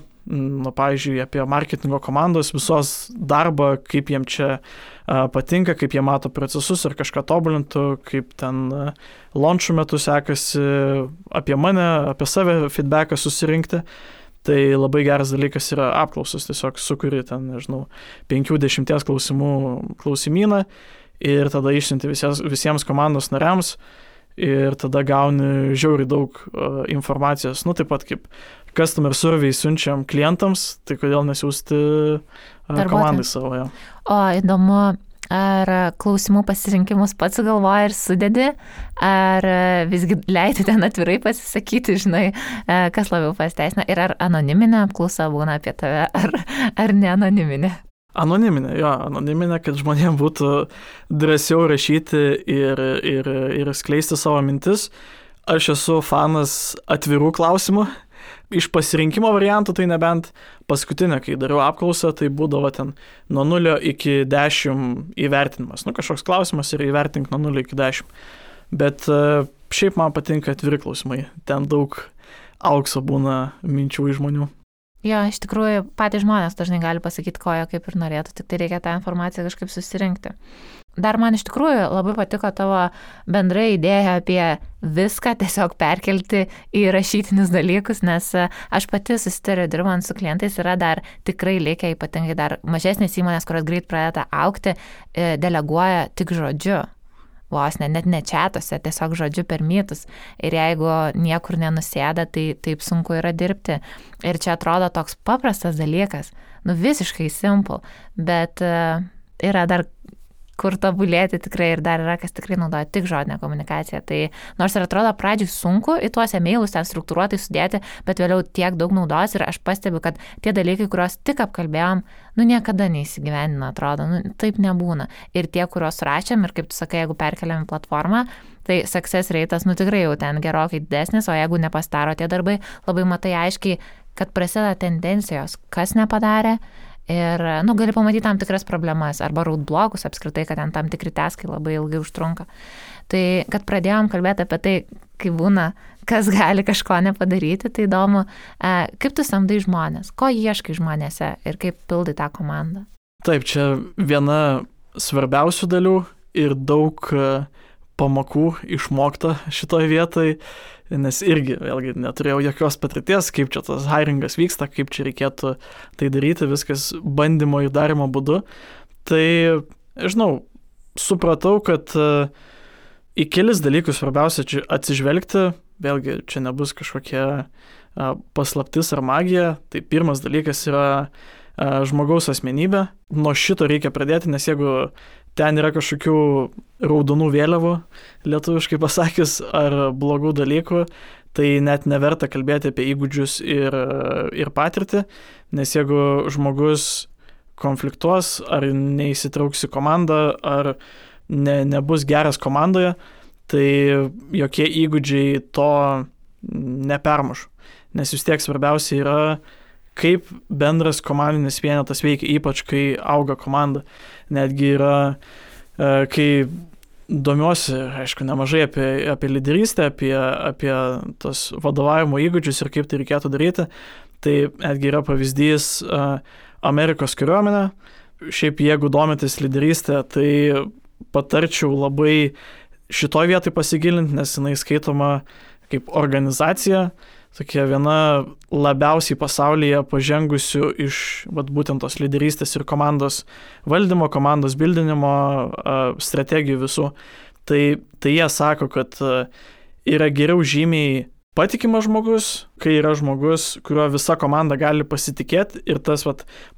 pavyzdžiui, apie marketingo komandos visos darbą, kaip jiem čia patinka, kaip jie mato procesus ir kažką tobulintų, kaip ten launchų metu sekasi, apie mane, apie save feedbacką susirinkti. Tai labai geras dalykas yra apklausos, tiesiog sukuri ten, nežinau, 5-10 klausimų klausimyną ir tada išsiunti visiems komandos nariams ir tada gauni žiauriai daug informacijos. Taip pat kaip customer survey siunčiam klientams, tai kodėl nesiųsti komandai savo. Jo. O įdomu, ar klausimų pasirinkimus pats galvoji ir sudedi, ar visgi leidi ten atvirai pasisakyti, žinai, kas labiau pasiteisina, ir ar anoniminė apklausa būna apie tave, ar ne anoniminė? Anoniminė, kad žmonėms būtų drąsiau rašyti ir skleisti savo mintis. Aš esu fanas atvirų klausimų. Iš pasirinkimo variantų, tai nebent paskutinę, kai dariau apklausą, tai būdavo ten nuo 0 iki 10 įvertinimas. Kažkoks klausimas ir įvertink nuo 0 iki 10. Bet šiaip man patinka atviri klausimai. Ten daug aukso būna minčių iš žmonių. Jo, iš tikrųjų, patys žmonės dažnai gali pasakyti, ko jie kaip ir norėtų, tik tai reikia tą informaciją kažkaip susirinkti. Dar man iš tikrųjų labai patiko tavo bendra idėja apie viską tiesiog perkelti į rašytinius dalykus, nes aš pati susitariu dirbant su klientais, yra dar tikrai likę, ypatingai dar mažesnės įmonės, kurios greit pradeda augti, deleguoja tik žodžiu. Vos net ne čatuose, tiesiog žodžiu per mytus. Ir jeigu niekur nenusėda, tai taip sunku yra dirbti. Ir čia atrodo toks paprastas dalykas, visiškai simple, bet yra dar kur tobulėti tikrai ir dar yra, kas tikrai naudoja tik žodinę komunikaciją. Tai nors ir atrodo pradžiui sunku į tuos emailus ten struktūruotai sudėti, bet vėliau tiek daug naudos ir aš pastebiu, kad tie dalykai, kuriuos tik apkalbėjom, niekada neįsigyvendina, atrodo, taip nebūna. Ir tie, kuriuos rašėm ir kaip tu sakai, jeigu perkeliam į platformą, tai success rate'as tikrai jau ten gerokai didesnis, o jeigu nepastaro tie darbai, labai matai aiškiai, kad prasideda tendencijos, kas nepadarė. Ir, gali pamatyti tam tikras problemas arba roadblockus apskritai, kad ten tam tikri taskai labai ilgai užtrunka. Tai, kad pradėjom kalbėti apie tai, kaip būna, kas gali kažko nepadaryti, tai įdomu, kaip tu samdai žmonės, ko ieškai žmonėse ir kaip pildai tą komandą. Taip, čia viena svarbiausių dalių ir daug pamokų išmokta šitoj vietoj, nes irgi, vėlgi, neturėjau jokios patirties, kaip čia tas hiringas vyksta, kaip čia reikėtų tai daryti, viskas bandymo ir darimo būdu. Tai, žinau, supratau, kad į kelis dalykus svarbiausia čia atsižvelgti, vėlgi, čia nebus kažkokia paslaptis ar magija, tai pirmas dalykas yra žmogaus asmenybė. Nuo šito reikia pradėti, nes jeigu ten yra kažkokių raudonų vėliavų, lietuviškai pasakius, ar blogų dalykų, tai net neverta kalbėti apie įgūdžius ir patirtį, nes jeigu žmogus konfliktuos, ar neįsitrauks į komandą, ar nebus geras komandoje, tai jokie įgūdžiai to nepermuš. nes vis tiek svarbiausia yra, kaip bendras komandinis vienetas veikia, ypač kai auga komanda. Netgi yra, kai domiuosi, aišku, nemažai apie lyderystę, apie tos vadovavimo įgūdžius ir kaip tai reikėtų daryti, tai netgi yra pavyzdys Amerikos kariuomenė. Šiaip jeigu domitės lyderystę, tai patarčiau labai šitoj vietoj pasigilinti, nes jinai skaitoma kaip organizacija, tokia viena labiausiai pasaulyje pažengusių iš būtent tos lyderystės ir komandos valdymo, komandos bildinimo strategijų visų. Tai jie sako, kad yra geriau žymiai patikimas žmogus, kai yra žmogus, kuriuo visa komanda gali pasitikėti ir tas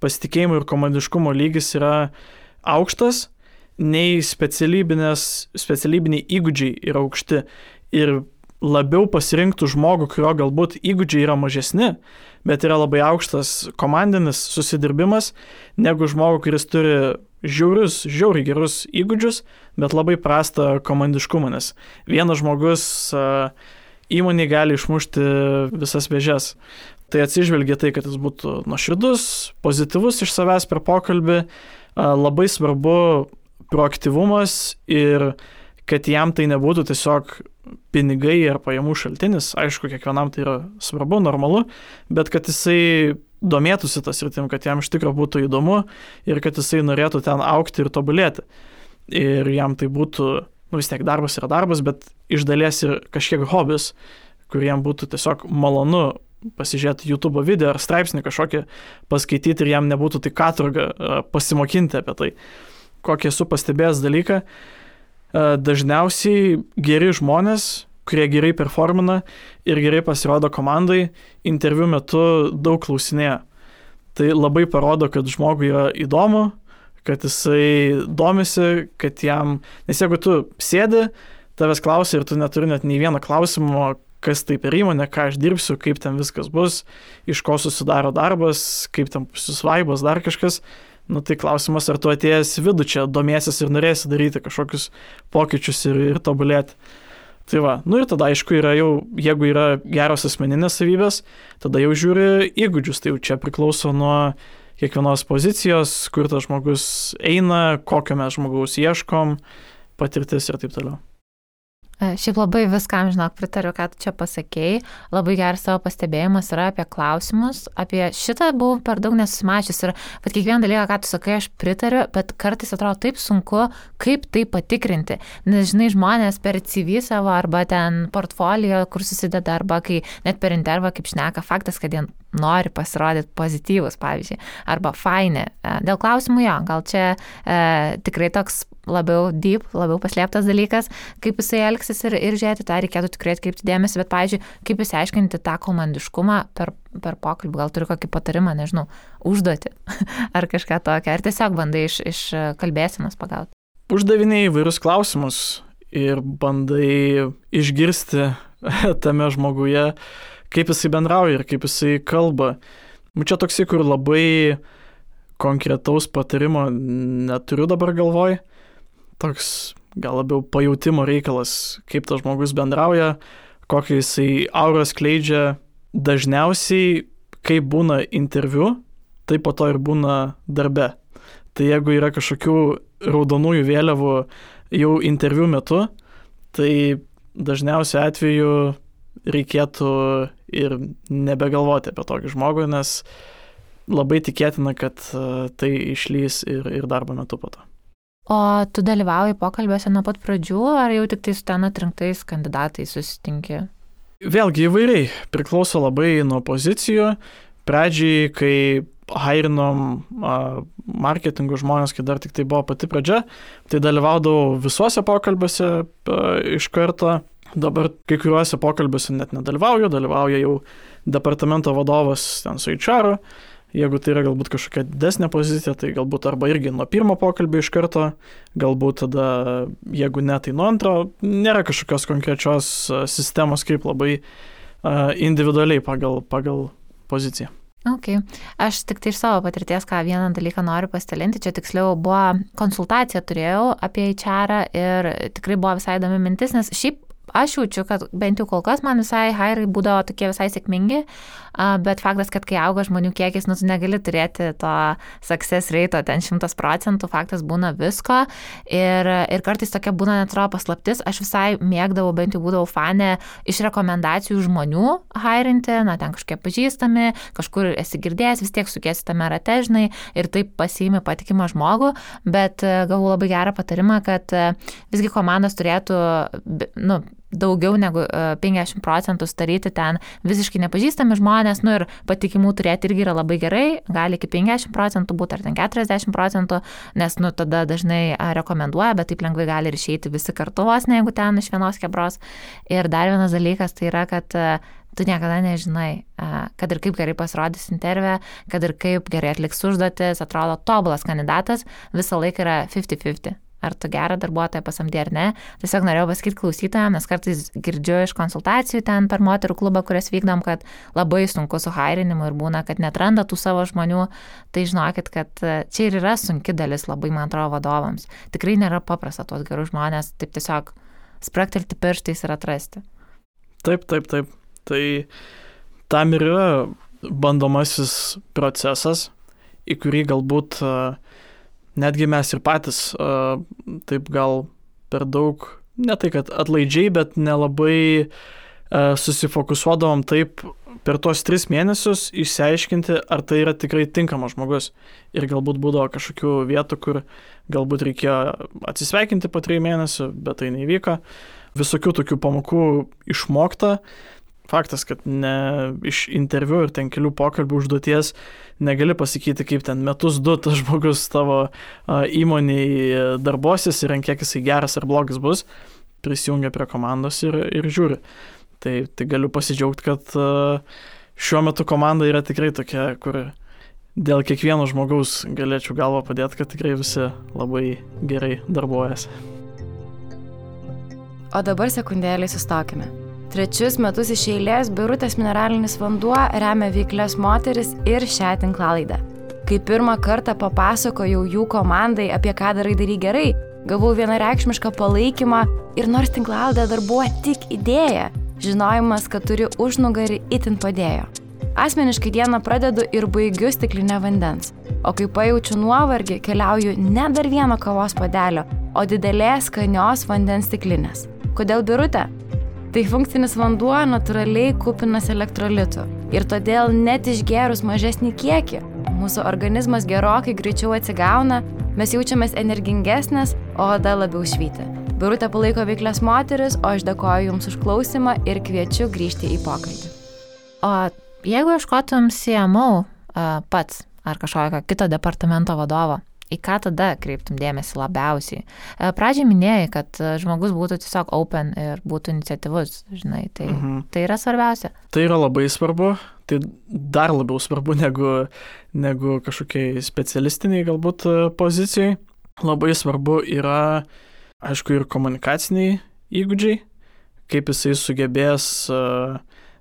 pasitikėjimo ir komandiškumo lygis yra aukštas, nei specialybiniai įgūdžiai yra aukšti ir labiau pasirinktų žmogų, kurio galbūt įgūdžiai yra mažesni, bet yra labai aukštas komandinis susidirbimas, negu žmogų, kuris turi žiauriai gerus įgūdžius, bet labai prastą komandiškumą, nes vienas žmogus įmonė gali išmušti visas vėžes. Tai atsižvelgia tai, kad jis būtų nuoširdus, pozityvus iš savęs per pokalbį, labai svarbu proaktyvumas ir kad jam tai nebūtų tiesiog pinigai ar pajamų šaltinis. Aišku, kiekvienam tai yra svarbu, normalu, bet kad jisai domėtųsi tas sritim, kad jam iš tikrųjų būtų įdomu ir kad jisai norėtų ten augti ir tobulėti. Ir jam tai būtų, vis tiek darbas yra darbas, bet iš dalies ir kažkiek hobis, kuriem būtų tiesiog malonu pasižiūrėti YouTube video ar straipsnį kažkokį paskaityti ir jam nebūtų tai katorga pasimokinti apie tai. Kokį esu pastebėjęs dalyką, dažniausiai geri žmonės, kurie gerai performina ir gerai pasirodo komandai, interviu metu daug klausinėja. Tai labai parodo, kad žmogui yra įdomu, kad jisai domisi, kad jam, nes jeigu tu sėdi, tavęs klausia ir tu neturi net nei vieno klausimo, kas tai per įmonė, ką aš dirbsiu, kaip ten viskas bus, iš ko susidaro darbas, kaip ten susvaibas, dar kažkas, tai klausimas, ar tu atėjęs vidų čia domėsis ir norėsi daryti kažkokius pokyčius ir tobulėti. Tai va, ir tada aišku yra jau, jeigu yra geros asmeninės savybės, tada jau žiūri įgūdžius, tai jau čia priklauso nuo kiekvienos pozicijos, kur tas žmogus eina, kokio mes žmogaus ieškom, patirtis ir taip toliau. Šiaip labai viskam, pritariu, ką tu čia pasakėjai. Labai geras savo pastebėjimas yra apie klausimus. Apie šitą buvau per daug nesusimačius ir kiekvieną dalyką, ką tu sakai, aš pritariu, bet kartais atrodo taip sunku, kaip tai patikrinti. Nes, žmonės per CV savo arba ten portfolio, kur susideda, arba kai net per intervą, kaip šneka, faktas, kad jie nori pasirodyti pozityvus, pavyzdžiui, arba faini. Dėl klausimų jo, gal čia tikrai toks labiau deep, labiau paslėptas dalykas, kaip jisai elgsis ir žiūrėti, tą reikėtų tikrai atkreipti dėmesį, bet, pavyzdžiui, kaip išsiaiškinti tą komandiškumą per pokalbį, gal turi kokį patarimą, nežinau, užduoti ar kažką tokio, ar tiesiog bandai iš kalbėsenos pagauti. Uždavinėjai įvairius klausimus ir bandai išgirsti tame žmoguje, kaip jisai bendrauja ir kaip jisai kalba. Čia toksai, kur labai konkretaus patarimo neturiu dabar galvoj. Toks gal labiau pajautimo reikalas, kaip tas žmogus bendrauja, kokį jisai aurą skleidžia. Dažniausiai, kai būna interviu, tai po to ir būna darbe. Tai jeigu yra kažkokių raudonųjų vėliavų jau interviu metu, tai dažniausiai atveju reikėtų ir nebegalvoti apie tokį žmogų, nes labai tikėtina, kad tai išlys ir darbo metu po to. O tu dalyvauji pokalbiuose nuo pat pradžių, ar jau tik tai su ten atrinktais kandidatais susitinki? Vėlgi įvairiai, priklauso labai nuo pozicijų. Pradžiai, kai hairinom marketingo žmonės, kai dar tik tai buvo pati pradžia, tai dalyvaudavau visuose pokalbiuose iš karto. Dabar kai kuriuose pokalbiuose net nedalyvauju, dalyvauja jau departamento vadovas ten su HR. Jeigu tai yra galbūt kažkokia didesnė pozicija, tai galbūt arba irgi nuo pirmo pokalbio iš karto, galbūt tada, jeigu ne, tai nuo antro. Nėra kažkokios konkrečios sistemos, kaip labai individualiai pagal poziciją. Ok. Aš tik tai iš savo patirties, ką vieną dalyką noriu pasidalinti, čia tiksliau buvo konsultacija turėjau apie HR ir tikrai buvo visai įdomi mintis, nes šiaip aš jaučiu, kad bent jau kol kas man visai hairai būdavo tokie visai sėkmingi, bet faktas, kad kai auga žmonių kiekis, tu negali turėti to success rate ten 100%, faktas būna visko ir kartais tokia būna netrodo paslaptis, aš visai mėgdavau, bent jau būdavau fanė iš rekomendacijų žmonių hairinti, ten kažkokie pažįstami, kažkur esi girdėjęs, vis tiek sukiesi tame rate, žinai, ir taip pasiimi patikimą žmogų, bet gavau labai gerą patarimą, kad visgi komandos turėtų, daugiau negu 50% daryti ten visiškai nepažįstami žmonės, ir patikimų turėti irgi yra labai gerai, gali iki 50% būti ar ten 40%, nes tada dažnai rekomenduoja, bet taip lengvai gali ir išeiti visi kartu vos, ne jeigu ten iš vienos kebros. Ir dar vienas dalykas tai yra, kad tu niekada nežinai, kad ir kaip gerai pasirodys interviu, kad ir kaip gerai atliks užduotis, atrodo tobulas kandidatas, visą laiką yra 50-50. Ar tu gerą darbuotoją pasamdė ar ne. Tiesiog norėjau pasakyti klausytojams, nes kartais girdžiu iš konsultacijų ten per moterų klubą, kurias vykdom, kad labai sunku su hairinimu ir būna, kad netranda tų savo žmonių. Tai žinokit, kad čia ir yra sunki dalis labai, man atrodo, vadovams. Tikrai nėra paprasta tuos gerus žmonės taip tiesiog spraktelti pirštais ir atrasti. Taip. Tai tam ir yra bandomasis procesas, į kurį galbūt netgi mes ir patys taip gal per daug, ne tai kad atlaidžiai, bet nelabai susifokusuodavom taip per tuos 3 mėnesius išsiaiškinti, ar tai yra tikrai tinkamas žmogus. Ir galbūt būdavo kažkokių vietų, kur galbūt reikėjo atsisveikinti po 3 mėnesių, bet tai neįvyko. Visokių tokių pamokų išmokta. Faktas, kad ne iš interviu ir ten kelių pokalbių užduoties negali pasakyti, kaip ten metus 2 tas žmogus tavo įmonėje darbosis ir ant kiek jisai geras ar blogas bus, prisijungia prie komandos ir žiūri. Tai galiu pasidžiaugti, kad šiuo metu komanda yra tikrai tokia, kur dėl kiekvieno žmogaus galėčiau galvą padėti, kad tikrai visi labai gerai darbuojasi. O dabar sekundėlį sustokime. 3 metus iš eilės Birutės mineralinis vanduo remia veiklias moteris ir šią tinklalaidę. Kai pirmą kartą papasakojau jų komandai, apie ką darai gerai, gavau vienareikšmišką palaikymą ir nors tinklalaidė dar buvo tik idėja, žinojimas, kad turi užnugarį itin padėjo. Asmeniškai dieną pradedu ir baigiu stiklinę vandens, o kai pajaučiu nuovargį, keliauju ne dar vieno kavos puodelio, o didelės skanios vandens stiklinės. Kodėl Birutė? Tai funkcinis vanduo natūraliai kupinas elektrolitų ir todėl net išgėrus mažesnį kiekį, mūsų organizmas gerokai greičiau atsigauna, mes jaučiamės energingesnės, o oda labiau švyti. Birutė palaiko veiklias moteris, o aš dėkoju Jums už klausimą ir kviečiu grįžti į pokalbį. O jeigu ieškotum CMO pats ar kažkokio kito departamento vadovo, į ką tada kreiptum dėmesį labiausiai? Pradžiai minėjai, kad žmogus būtų tiesiog open ir būtų iniciatyvus, žinai, tai yra svarbiausia. Tai yra labai svarbu, tai dar labiau svarbu negu kažkokiai specialistiniai galbūt pozicijai. Labai svarbu yra, aišku, ir komunikaciniai įgūdžiai, kaip jisai sugebės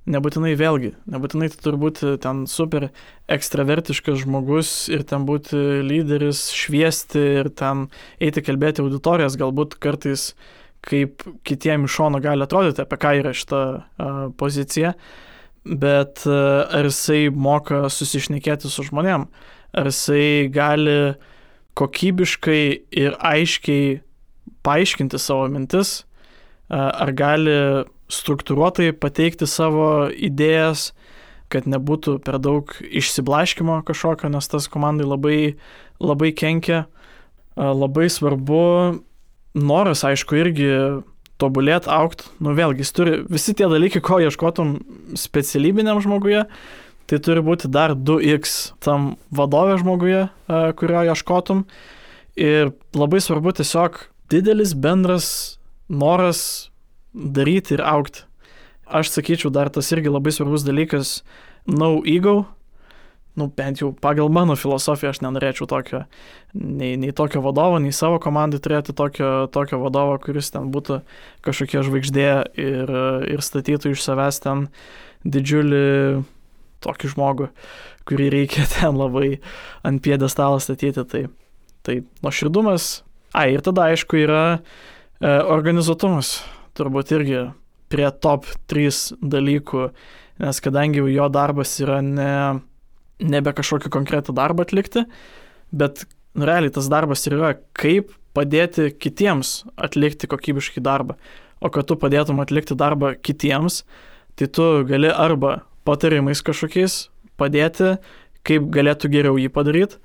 nebūtinai tai turi būti ten super ekstravertiškas žmogus ir ten būti lyderis, šviesti ir ten eiti kalbėti auditorijas, galbūt kartais kaip kitiem iš šono gali atrodyti, apie ką yra šita pozicija, bet ar jisai moka susišnekėti su žmonėm, ar jisai gali kokybiškai ir aiškiai paaiškinti savo mintis, ar gali struktūruotai pateikti savo idėjas, kad nebūtų per daug išsiblaškymo kažkokio, nes tas komandai labai kenkia. Labai svarbu noras, aišku, irgi tobulėti, augti. Vėlgi, jis turi visi tie dalykai, ko ieškotum specialybiniam žmoguje, tai turi būti dar 2x tam vadovė žmoguje, kurio ieškotum. Ir labai svarbu tiesiog didelis bendras noras daryti ir augti. Aš sakyčiau, dar tas irgi labai svarbus dalykas, no ego. Bent jau pagal mano filosofiją aš nenorėčiau tokio, nei tokio vadovo, nei savo komandai turėti tokio vadovo, kuris ten būtų kažkokia žvaigždė ir statytų iš savęs ten didžiulį tokį žmogų, kurį reikia ten labai ant piedestalo statyti. Tai nuoširdumas. Ir tada aišku yra organizuotumas. turbūt irgi prie top 3 dalykų, nes kadangi jo darbas yra nebe kažkokį konkretų darbą atlikti, bet realiai tas darbas yra kaip padėti kitiems atlikti kokybiškai darbą. O kad tu padėtum atlikti darbą kitiems, tai tu gali arba patarimais kažkokiais padėti, kaip galėtų geriau jį padaryti,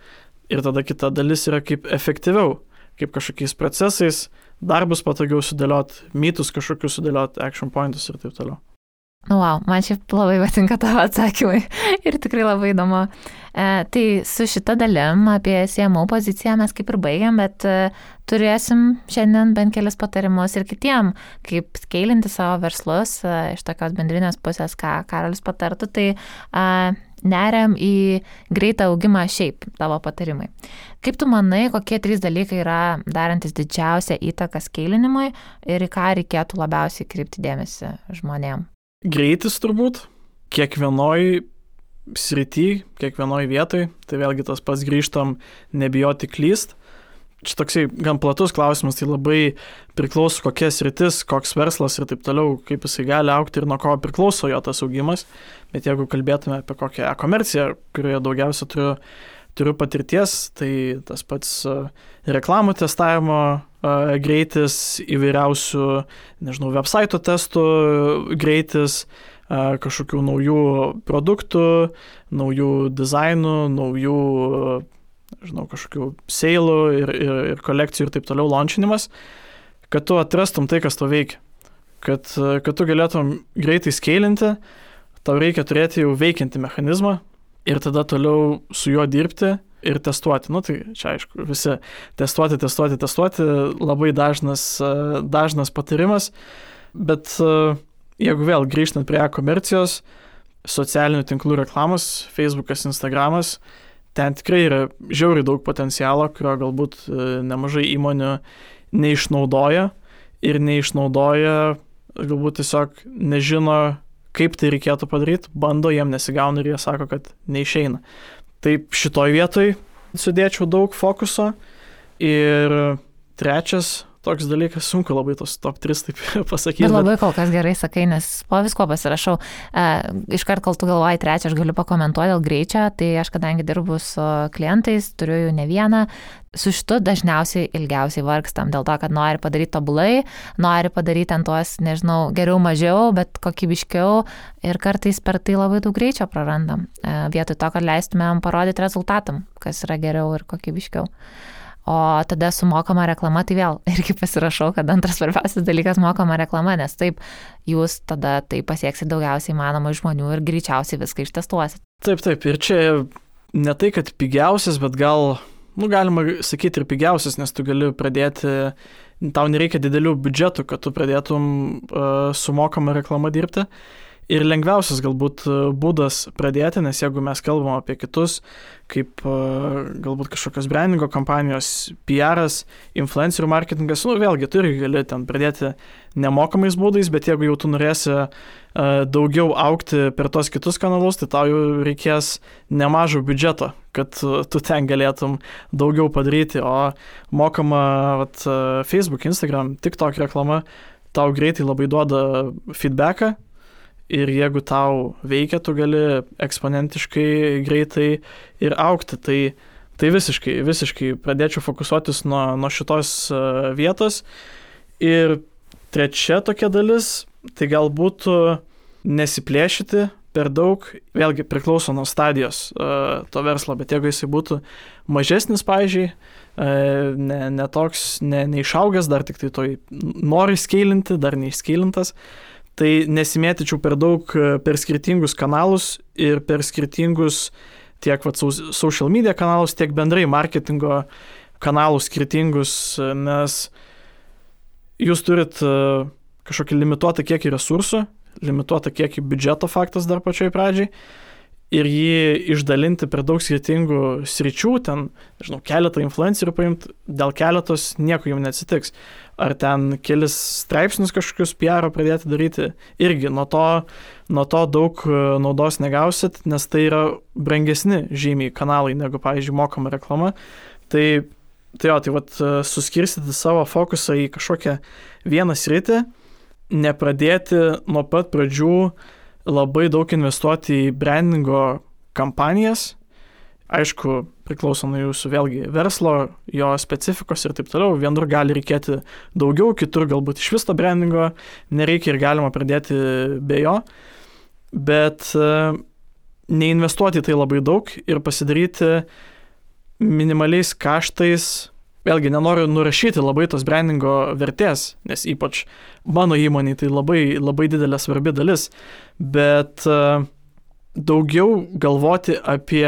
ir tada kita dalis yra kaip efektyviau, kaip kažkokiais procesais, darbus patogiau sudėliot, mytus kažkokius sudėliot, action pointus ir taip toliau. Wow, man šiaip labai patinka tavo atsakymai ir tikrai labai įdomu. Tai su šita dalim apie CMO poziciją mes kaip ir baigiam, bet turėsim šiandien bent kelis patarimus ir kitiem, kaip skeilinti savo verslus iš tokios bendrinės pusės, ką Karolis patartų, tai neriam į greitą augimą šiaip tavo patarimai. Kaip tu manai, kokie 3 dalykai yra darantis didžiausią įtaką skeilinimui ir į ką reikėtų labiausiai kreipti dėmesį žmonėm? Greitis turbūt, kiekvienoj srity, kiekvienoj vietoj, tai vėlgi tas pats grįžtam nebijoti klyst. Čia toksai gan platus klausimas, tai labai priklauso kokia sritis, koks verslas ir taip toliau, kaip jisai gali augti ir nuo ko priklauso jo tas augimas. Bet jeigu kalbėtume apie kokią e-komerciją, kurioje daugiausia turiu patirties, tai tas pats reklamų testavimo greitis, įvairiausių, website testų greitis, kažkokių naujų produktų, naujų dizainų, naujų, kažkokių seilų ir kolekcijų ir taip toliau launchinimas, kad tu atrastum tai, kas to veikia. Kad tu galėtum greitai skeilinti, tau reikia turėti jau veikiantį mechanizmą ir tada toliau su juo dirbti ir testuoti. Tai čia aišku, visi testuoti, labai dažnas patarimas, bet jeigu vėl grįžtant prie e-komercijos, socialinių tinklų reklamos, Facebookas, Instagramas, ten tikrai yra žiauriai daug potencialo, kurio galbūt nemažai įmonių neišnaudoja ir galbūt tiesiog nežino, kaip tai reikėtų padaryti, bando, jiem nesigauna ir jie sako, kad neišeina. Taip šitoj vietoj sudėčiau daug fokuso. Ir trečias toks dalykas, sunku labai tos top 3 taip pasakyti. Bet labai kol kas gerai sakai, nes po visko pasirašau. Iškart, kol tu galvoji trečią, aš galiu pakomentuoti dėl greičio, tai aš kadangi dirbu su klientais, turiu jų ne vieną, su šitu dažniausiai ilgiausiai vargstam, dėl to, kad nori padaryti tobulai, nori padaryti ant tuos, geriau mažiau, bet kokybiškiau ir kartais per tai labai daug greičio prarandam, vietoj to, kad leistumėm parodyti rezultatam, kas yra geriau ir kokybiškiau. O tada su mokama reklama, tai vėl irgi pasirašau, kad antras svarbiausias dalykas mokama reklama, nes taip jūs tada tai pasieksite daugiausiai įmanomų žmonių ir greičiausiai viską ištestuosit. Taip, ir čia ne tai, kad pigiausias, bet gal, galima sakyti ir pigiausias, nes tu gali pradėti, tau nereikia didelių biudžetų, kad tu pradėtum su mokama reklama dirbti. Ir lengviausias galbūt būdas pradėti, nes jeigu mes kalbam apie kitus, kaip galbūt kažkokios brandingo kampanijos, PR'as, influencerių marketingas, vėlgi tu irgi gali ten pradėti nemokamais būdais, bet jeigu jau tu norėsi daugiau augti per tos kitus kanalus, tai tau jau reikės nemažo biudžeto, kad tu ten galėtum daugiau padaryti, o mokama Facebook, Instagram, TikTok reklama tau greitai labai duoda feedbacką. Ir jeigu tau veikia, tu gali eksponentiškai greitai ir augti. Tai visiškai pradėčiau fokusuotis nuo šitos vietos. Ir trečia tokia dalis, tai galbūt nesiplėšyti per daug, vėlgi priklauso nuo stadijos to verslo, bet jeigu jisai būtų mažesnis, pavyzdžiui, neišaugęs, dar tik tai toj nori skeilinti, dar neišskeilintas, tai nesimėtyčiau per daug per skirtingus kanalus ir per skirtingus tiek social media kanalus, tiek bendrai marketingo kanalus skirtingus, nes jūs turit kažkokį limituotą kiekį resursų, limituotą kiekį biudžeto faktas dar pačioj pradžiai ir jį išdalinti per daug skirtingų sričių, ten, keletą influencerių paimti, dėl keletos nieko jums neatsitiks. Ar ten kelis straipsnius kažkokius PR pradėti daryti, irgi nuo to daug naudos negausit, nes tai yra brangesni žymiai kanalai negu, pavyzdžiui, mokama reklama. Tai suskirstyti savo fokusą į kažkokią vieną sritį nepradėti nuo pat pradžių labai daug investuoti į brandingo kampanijas. Aišku, priklauso nuo jūsų vėlgi verslo, jo specifikos ir taip toliau. Vienur gali reikėti daugiau, kitur galbūt iš viso brandingo nereikia ir galima pradėti be jo. Bet neinvestuoti tai labai daug ir pasidaryti minimaliais kaštais. Vėlgi, nenoriu nurašyti labai tos brandingo vertės, nes ypač mano įmonėje tai labai, labai didelė svarbi dalis, bet daugiau galvoti apie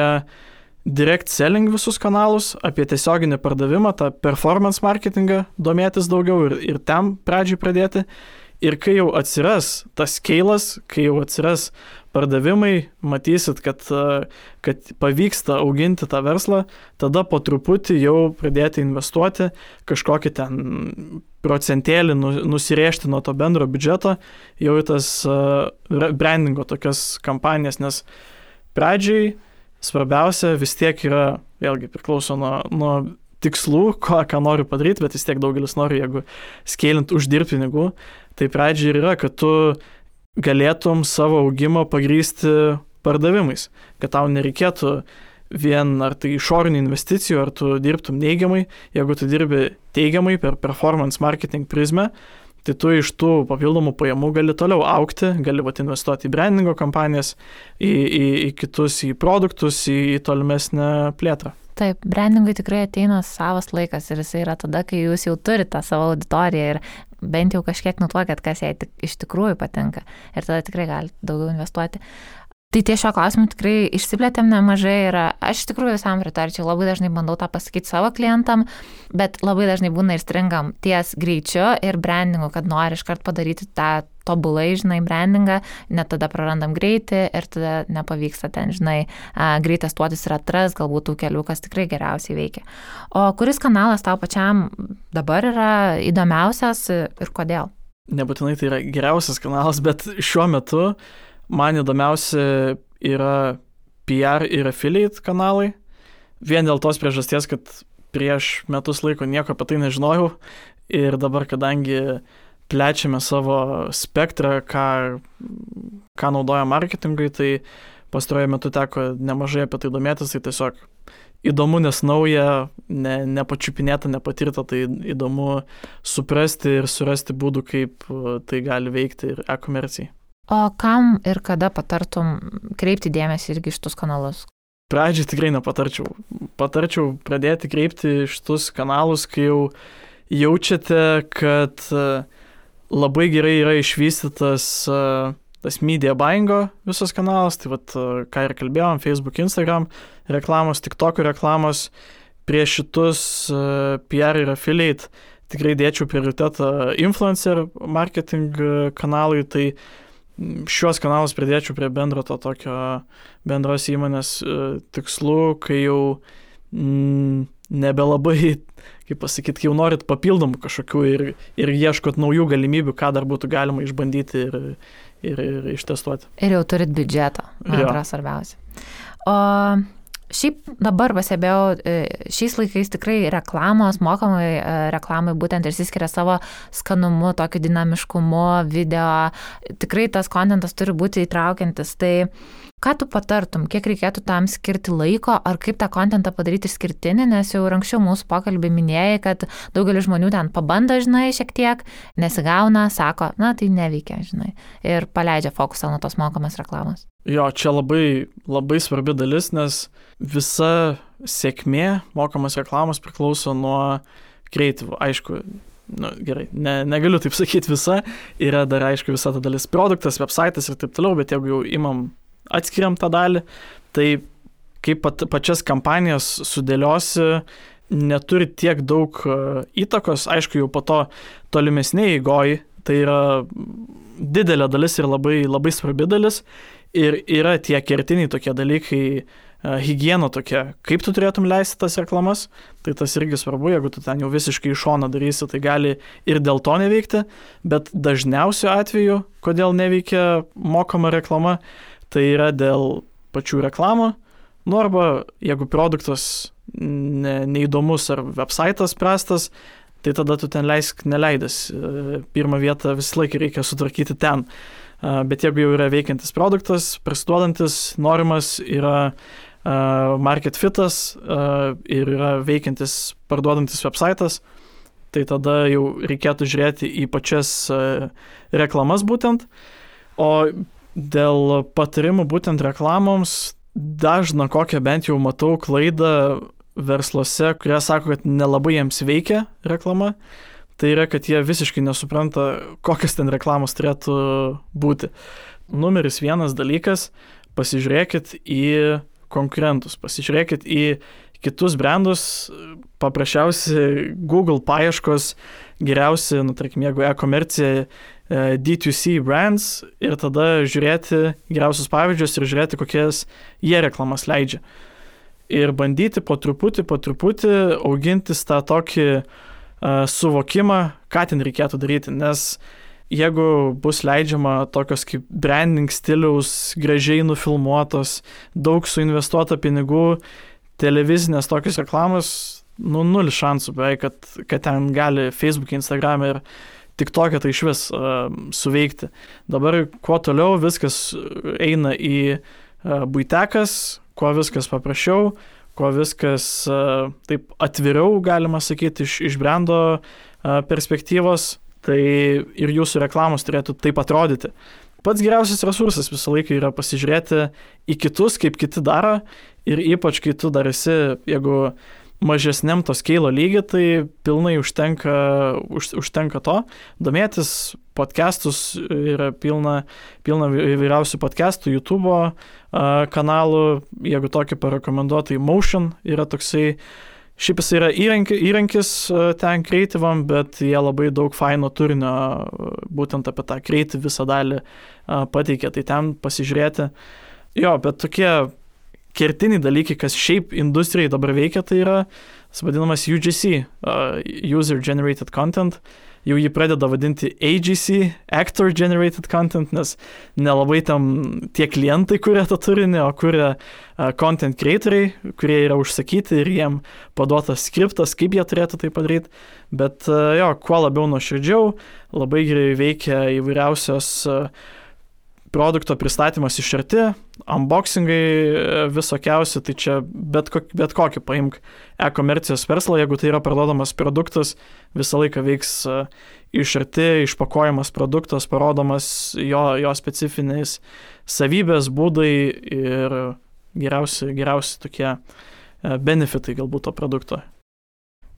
direct selling visus kanalus, apie tiesioginį pardavimą, tą performance marketingą domėtis daugiau ir ten pradžiai pradėti. Ir kai jau atsiras tas scale'as, kai jau atsiras pardavimai, matysit, kad pavyksta auginti tą verslą, tada po truputį jau pradėti investuoti, kažkokį ten procentėlį nusirėžti nuo to bendro biudžeto, jau į tas brandingo tokias kampanijas, nes pradžiai svarbiausia vis tiek yra, vėlgi priklauso nuo tikslų, ką noriu padaryti, bet vis tiek daugelis nori, jeigu scalint uždirbti pinigų, tai pradžiai yra, kad tu galėtum savo augimą pagrįsti pardavimais, kad tau nereikėtų vien ar tai išorinių investicijų, ar tu dirbtum neigiamai, jeigu tu dirbi teigiamai per performance marketing prizmę, tai tu iš tų papildomų pajamų gali toliau augti, gali investuoti į brandingo kampanijas, į kitus, į produktus, į tolimesnę plėtrą. Taip, brandingui tikrai ateina savas laikas ir jisai yra tada, kai jūs jau turite tą savo auditoriją ir bent jau kažkiek nutuokėt, kas jai iš tikrųjų patinka ir tada tikrai galite daugiau investuoti. Tai ties šio klausimu tikrai išsiplėtėm nemažai ir aš iš tikrųjų visam pritarčiau, labai dažnai bandau tą pasakyti savo klientam, bet labai dažnai būna ir stringam ties greičiu ir brandingu, kad nori iškart padaryti tą tobulai, žinai, brandingą, net tada prarandam greitį ir tada nepavyksta ten, žinai, greit testuotis ir atras galbūt tų kelių, kas tikrai geriausiai veikia. O kuris kanalas tau pačiam dabar yra įdomiausias ir kodėl? Nebūtinai tai yra geriausias kanalas, bet šiuo metu man įdomiausia yra PR ir affiliate kanalai. Vien dėl tos priežasties, kad prieš metus laiko nieko apie tai nežinojau ir dabar, kadangi plečiame savo spektrą, ką naudoja marketingui, tai pastaruoju metu teko nemažai apie tai domėtis, tai tiesiog įdomu, nes nauja, nepačiupinėta, nepatirta, tai įdomu suprasti ir surasti būdų, kaip tai gali veikti ir e-komercijai. O kam ir kada patartum kreipti dėmesį irgi šitus kanalus? Pradžiai tikrai nepatarčiau. Patarčiau pradėti kreipti šitus kanalus, kai jau jaučiate, kad labai gerai yra išvystytas tas media buyingo visas kanalas, tai vat, ką ir kalbėjom, Facebook, Instagram reklamos, TikTok reklamos, prieš šitus PR ir affiliate tikrai dėčiau prioritetą influencer marketing kanalui, tai šios kanalus pridėčiau prie bendro to tokio bendros įmonės tikslų, kai jau nebelabai, kaip pasakyti, jau norit papildomų kažkokių ir ieškot naujų galimybių, ką dar būtų galima išbandyti ir ištestuoti. Ir jau turit biudžetą, man atrodo svarbiausia. O šiaip dabar pasibėjau, šiais laikais tikrai reklamos, mokamai reklamai būtent ir išsiskiria savo skanumu, tokiu dinamiškumu, video, tikrai tas kontentas turi būti įtraukiantis. Tai ką tu patartum, kiek reikėtų tam skirti laiko, ar kaip tą kontentą padaryti išskirtinį, nes jau anksčiau mūsų pokalbį minėjai, kad daugelis žmonių ten pabando, žinai, šiek tiek, nesigauna, sako, na tai neveikia, žinai, ir paleidžia fokusą nuo tos mokamos reklamos. Jo, čia labai, labai svarbi dalis, nes visa sėkmė mokamos reklamos priklauso nuo kreatyvų. Aišku, gerai, negaliu taip sakyti visa, yra dar aišku visa ta dalis produktas, websaitas ir taip toliau, bet jeigu jau atskiriam tą dalį, tai kaip pačias kampanijas sudėliosi, neturi tiek daug įtakos, aišku, jau po to tolimesnėje eigoje, tai yra didelė dalis ir labai, labai svarbi dalis, ir yra tie kertiniai tokie dalykai, higiena tokia, kaip tu turėtum leisti tas reklamas, tai tas irgi svarbu, jeigu tu ten jau visiškai iš šono darysi, tai gali ir dėl to neveikti, bet dažniausiu atveju, kodėl neveikia mokama reklama, tai yra dėl pačių reklamų, arba jeigu produktas neįdomus ar websaitas prastas, tai tada tu ten leisk neleidęs. Pirmą vietą visą laiką reikia sutvarkyti ten. Bet jeigu jau yra veikiantis produktas, prasiduodantis, norimas, yra market fitas ir yra veikiantis parduodantis websaitas, tai tada jau reikėtų žiūrėti į pačias reklamas būtent. O dėl patarimų būtent reklamoms, dažna kokią bent jau matau klaidą versluose, kurie sako, kad nelabai jiems veikia reklama, tai yra, kad jie visiškai nesupranta, kokios ten reklamos turėtų būti. Numeris 1 dalykas, pasižiūrėkit į konkurentus, pasižiūrėkit į kitus brandus, paprasčiausiai Google paieškos, geriausi, tarkim, jeigu e-komercija, D2C brands ir tada žiūrėti geriausius pavyzdžius ir žiūrėti, kokias jie reklamas leidžia. Ir bandyti po truputį augintis tą tokį suvokimą, ką ten reikėtų daryti, nes jeigu bus leidžiama tokios kaip branding stiliaus, gražiai nufilmuotos, daug suinvestuota pinigų, televizinės tokios reklamos, 0 šansų beveik, kad ten gali Facebook, Instagram ir TikTok'e tai iš vis suveikti. Dabar kuo toliau viskas eina į buitekas, kuo viskas paprasčiau, kuo viskas taip atviriau, galima sakyti, iš brando perspektyvos, tai ir jūsų reklamos turėtų taip atrodyti. Pats geriausias resursas visą laiką yra pasižiūrėti į kitus, kaip kiti daro, ir ypač kai tu dar esi, jeigu mažesniam to skeilo lygį, tai pilnai užtenka to. Domėtis podcastus, yra pilna įvairiausių podcastų, YouTube kanalų, jeigu tokį parekomenduoju, tai Motion yra toksai, šiaip jis yra įrankis ten kreatyvam, bet jie labai daug faino turinio būtent apie tą kreatyv visą dalį pateikia, tai ten pasižiūrėti. Jo, bet tokie kertiniai dalykai, kas šiaip industrijai dabar veikia, tai yra vadinamas UGC, User Generated Content. Jau jį pradeda vadinti AGC, Actor Generated Content, nes nelabai tam tie klientai kuria tą turinį, o kuria content creatoriai, kurie yra užsakyti ir jiem paduotas skriptas, kaip jie turėtų tai padaryti. Bet jo, kuo labiau nuoširdžiau, labai gerai veikia įvairiausios produkto pristatymas iš arti, unboxingai visokiausi, tai čia bet kokį paimk e-komercijos verslą, jeigu tai yra parduodamas produktas, visą laiką veiks iš arti, išpakuojamas produktas, parodomas jo specifinės savybės, būdai ir geriausi tokie benefitai galbūt to produkto.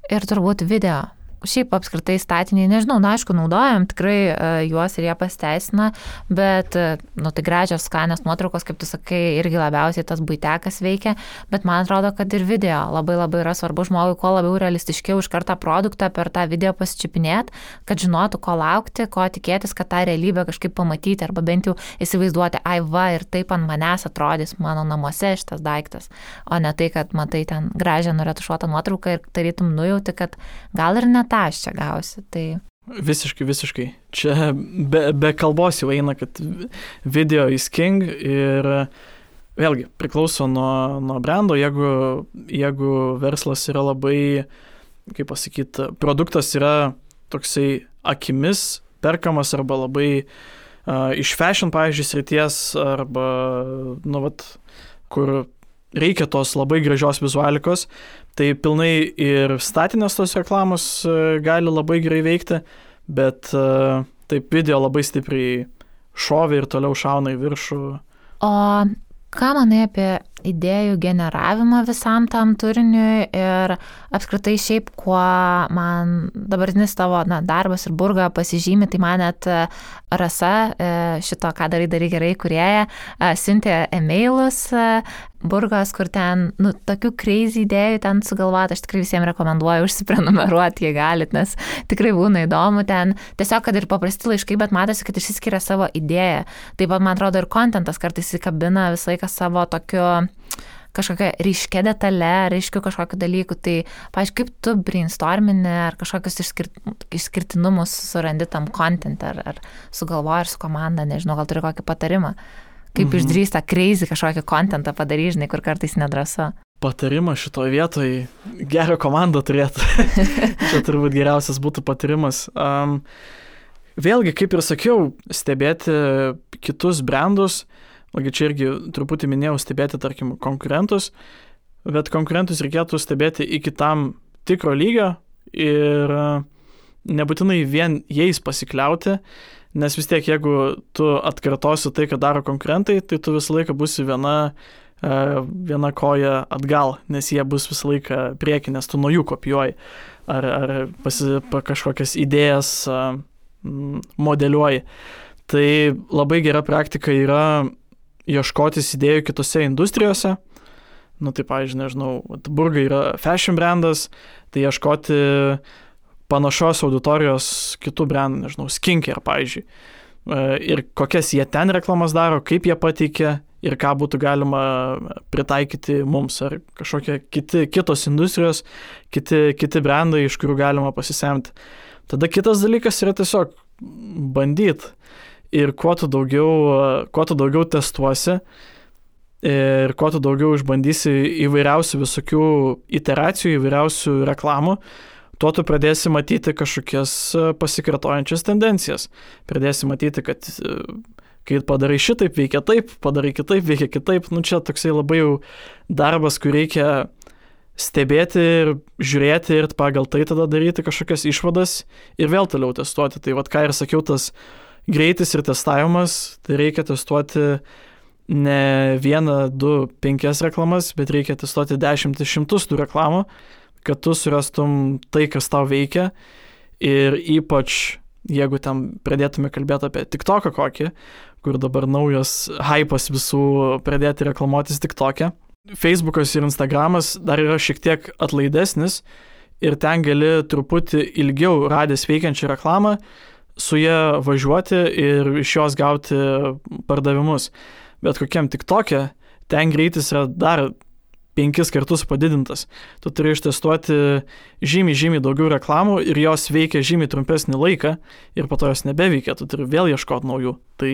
Ir turbūt video. Šiaip apskritai statiniai, nežinau, aišku, naudojam tikrai juos ir jie pasiteisina, bet, tai gražios, skanios nuotraukos, kaip tu sakai, irgi labiausiai tas buitekas veikia, bet man atrodo, kad ir video labai yra svarbu žmogui, kuo labiau realistiškiau iš kartą produktą per tą video pasičiupinėti, kad žinotų, ko laukti, ko tikėtis, kad tą realybę kažkaip pamatyti, arba bent jau įsivaizduoti, ir taip ant manęs atrodys mano namuose šitas daiktas, o ne tai, kad matai ten gražią nuretušuotą nuotrauką ir tarytum nujauti, kad gal ir net aš čia gausi, tai... Visiškai. Čia be kalbos jau eina, kad video is king ir vėlgi priklauso nuo brando, jeigu verslas yra labai, kaip pasakyti, produktas yra toksai akimis perkamas arba labai iš fashion, pavyzdžiui, srities arba, kur reikia tos labai gražios vizualikos, tai pilnai ir statinės tos reklamos gali labai gerai veikti, bet taip video labai stipriai šovė ir toliau šauna į viršų. O ką manai apie idėjų generavimą visam tam turiniui ir apskritai šiaip, kuo man dabartinis tavo darbas ir Burga pasižymi, tai man net Rasa, šito ką darai gerai kūrėja, siuntė emailus Burgos, kur ten, tokių crazy idėjų ten sugalvoti, aš tikrai visiems rekomenduoju užsiprenumeruoti, jei galit, nes tikrai būna įdomu ten, tiesiog, kad ir paprasti laiškai, bet matosi, kad išsiskiria savo idėją. Taip pat, man atrodo, ir kontentas kartais įkabina visą laiką savo tokiu kažkokia ryškia detalė, ryškių kažkokių dalykų, tai, pavyzdžiui, kaip tu brainstormini ar kažkokius išskirtinumus surandi tam content, ar sugalvoji ir su komanda, nežinau, gal turi kokį patarimą, kaip išdrįsta crazy kažkokį contentą padaryti, žinai, kur kartais nedrąsu. patarimas šitoje vietoje, gerą komandą turėtų. Čia turbūt geriausias būtų patarimas. Vėlgi, kaip ir sakiau, stebėti kitus brandus, čia irgi truputį minėjau, stebėti, tarkim, konkurentus, bet konkurentus reikėtų stebėti iki tam tikro lygio ir nebūtinai vien jais pasikliauti, nes vis tiek, jeigu tu atkartosi tai, ką daro konkurentai, tai tu visą laiką būsi viena koja atgal, nes jie bus visą laiką prieki, nes tu nuo jų kopijuoji ar kažkokias idėjas modeliuoji. Tai labai gera praktika yra ieškotis idėjų kitose industrijose. Tai pavyzdžiui, nežinau, Burgai yra fashion brandas, tai ieškoti panašios auditorijos kitų brandų, nežinau, skincare, pavyzdžiui. Ir kokias jie ten reklamas daro, kaip jie pateikia ir ką būtų galima pritaikyti mums, ar kažkokie kitos industrijos, kiti brandai, iš kurių galima pasisemti. Tada kitas dalykas yra tiesiog bandyti. Ir kuo tu daugiau testuosi ir kuo tu daugiau išbandysi įvairiausių visokių iteracijų, įvairiausių reklamų, tuo tu pradėsi matyti kažkokias pasikartojančias tendencijas. Pradėsi matyti, kad kai padarai šitaip, veikia taip, padarai kitaip, veikia kitaip. Čia toksai labai jau darbas, kur reikia stebėti ir žiūrėti ir pagal tai tada daryti kažkokias išvadas ir vėl toliau testuoti. Tai ką ir sakiau, tas greitis ir testavimas, tai reikia testuoti ne 1, 2, 5 reklamas, bet reikia testuoti 10, 100 tų reklamų, kad tu surastum tai, kas tau veikia. Ir ypač, jeigu ten pradėtume kalbėti apie TikToką kokį, kur dabar naujas hypas visų pradėti reklamuotis TikTok'e. Facebookas ir Instagramas dar yra šiek tiek atlaidesnis ir ten gali truputį ilgiau radęs veikiančią reklamą, su ją važiuoti ir iš jos gauti pardavimus. Bet kokiam TikTok'e ten greitis yra dar 5 kartus padidintas. Tu turi ištestuoti žymiai daugiau reklamų ir jos veikia žymiai trumpesnį laiką ir po to jos nebeveikia, tu turi vėl ieškoti naujų. Tai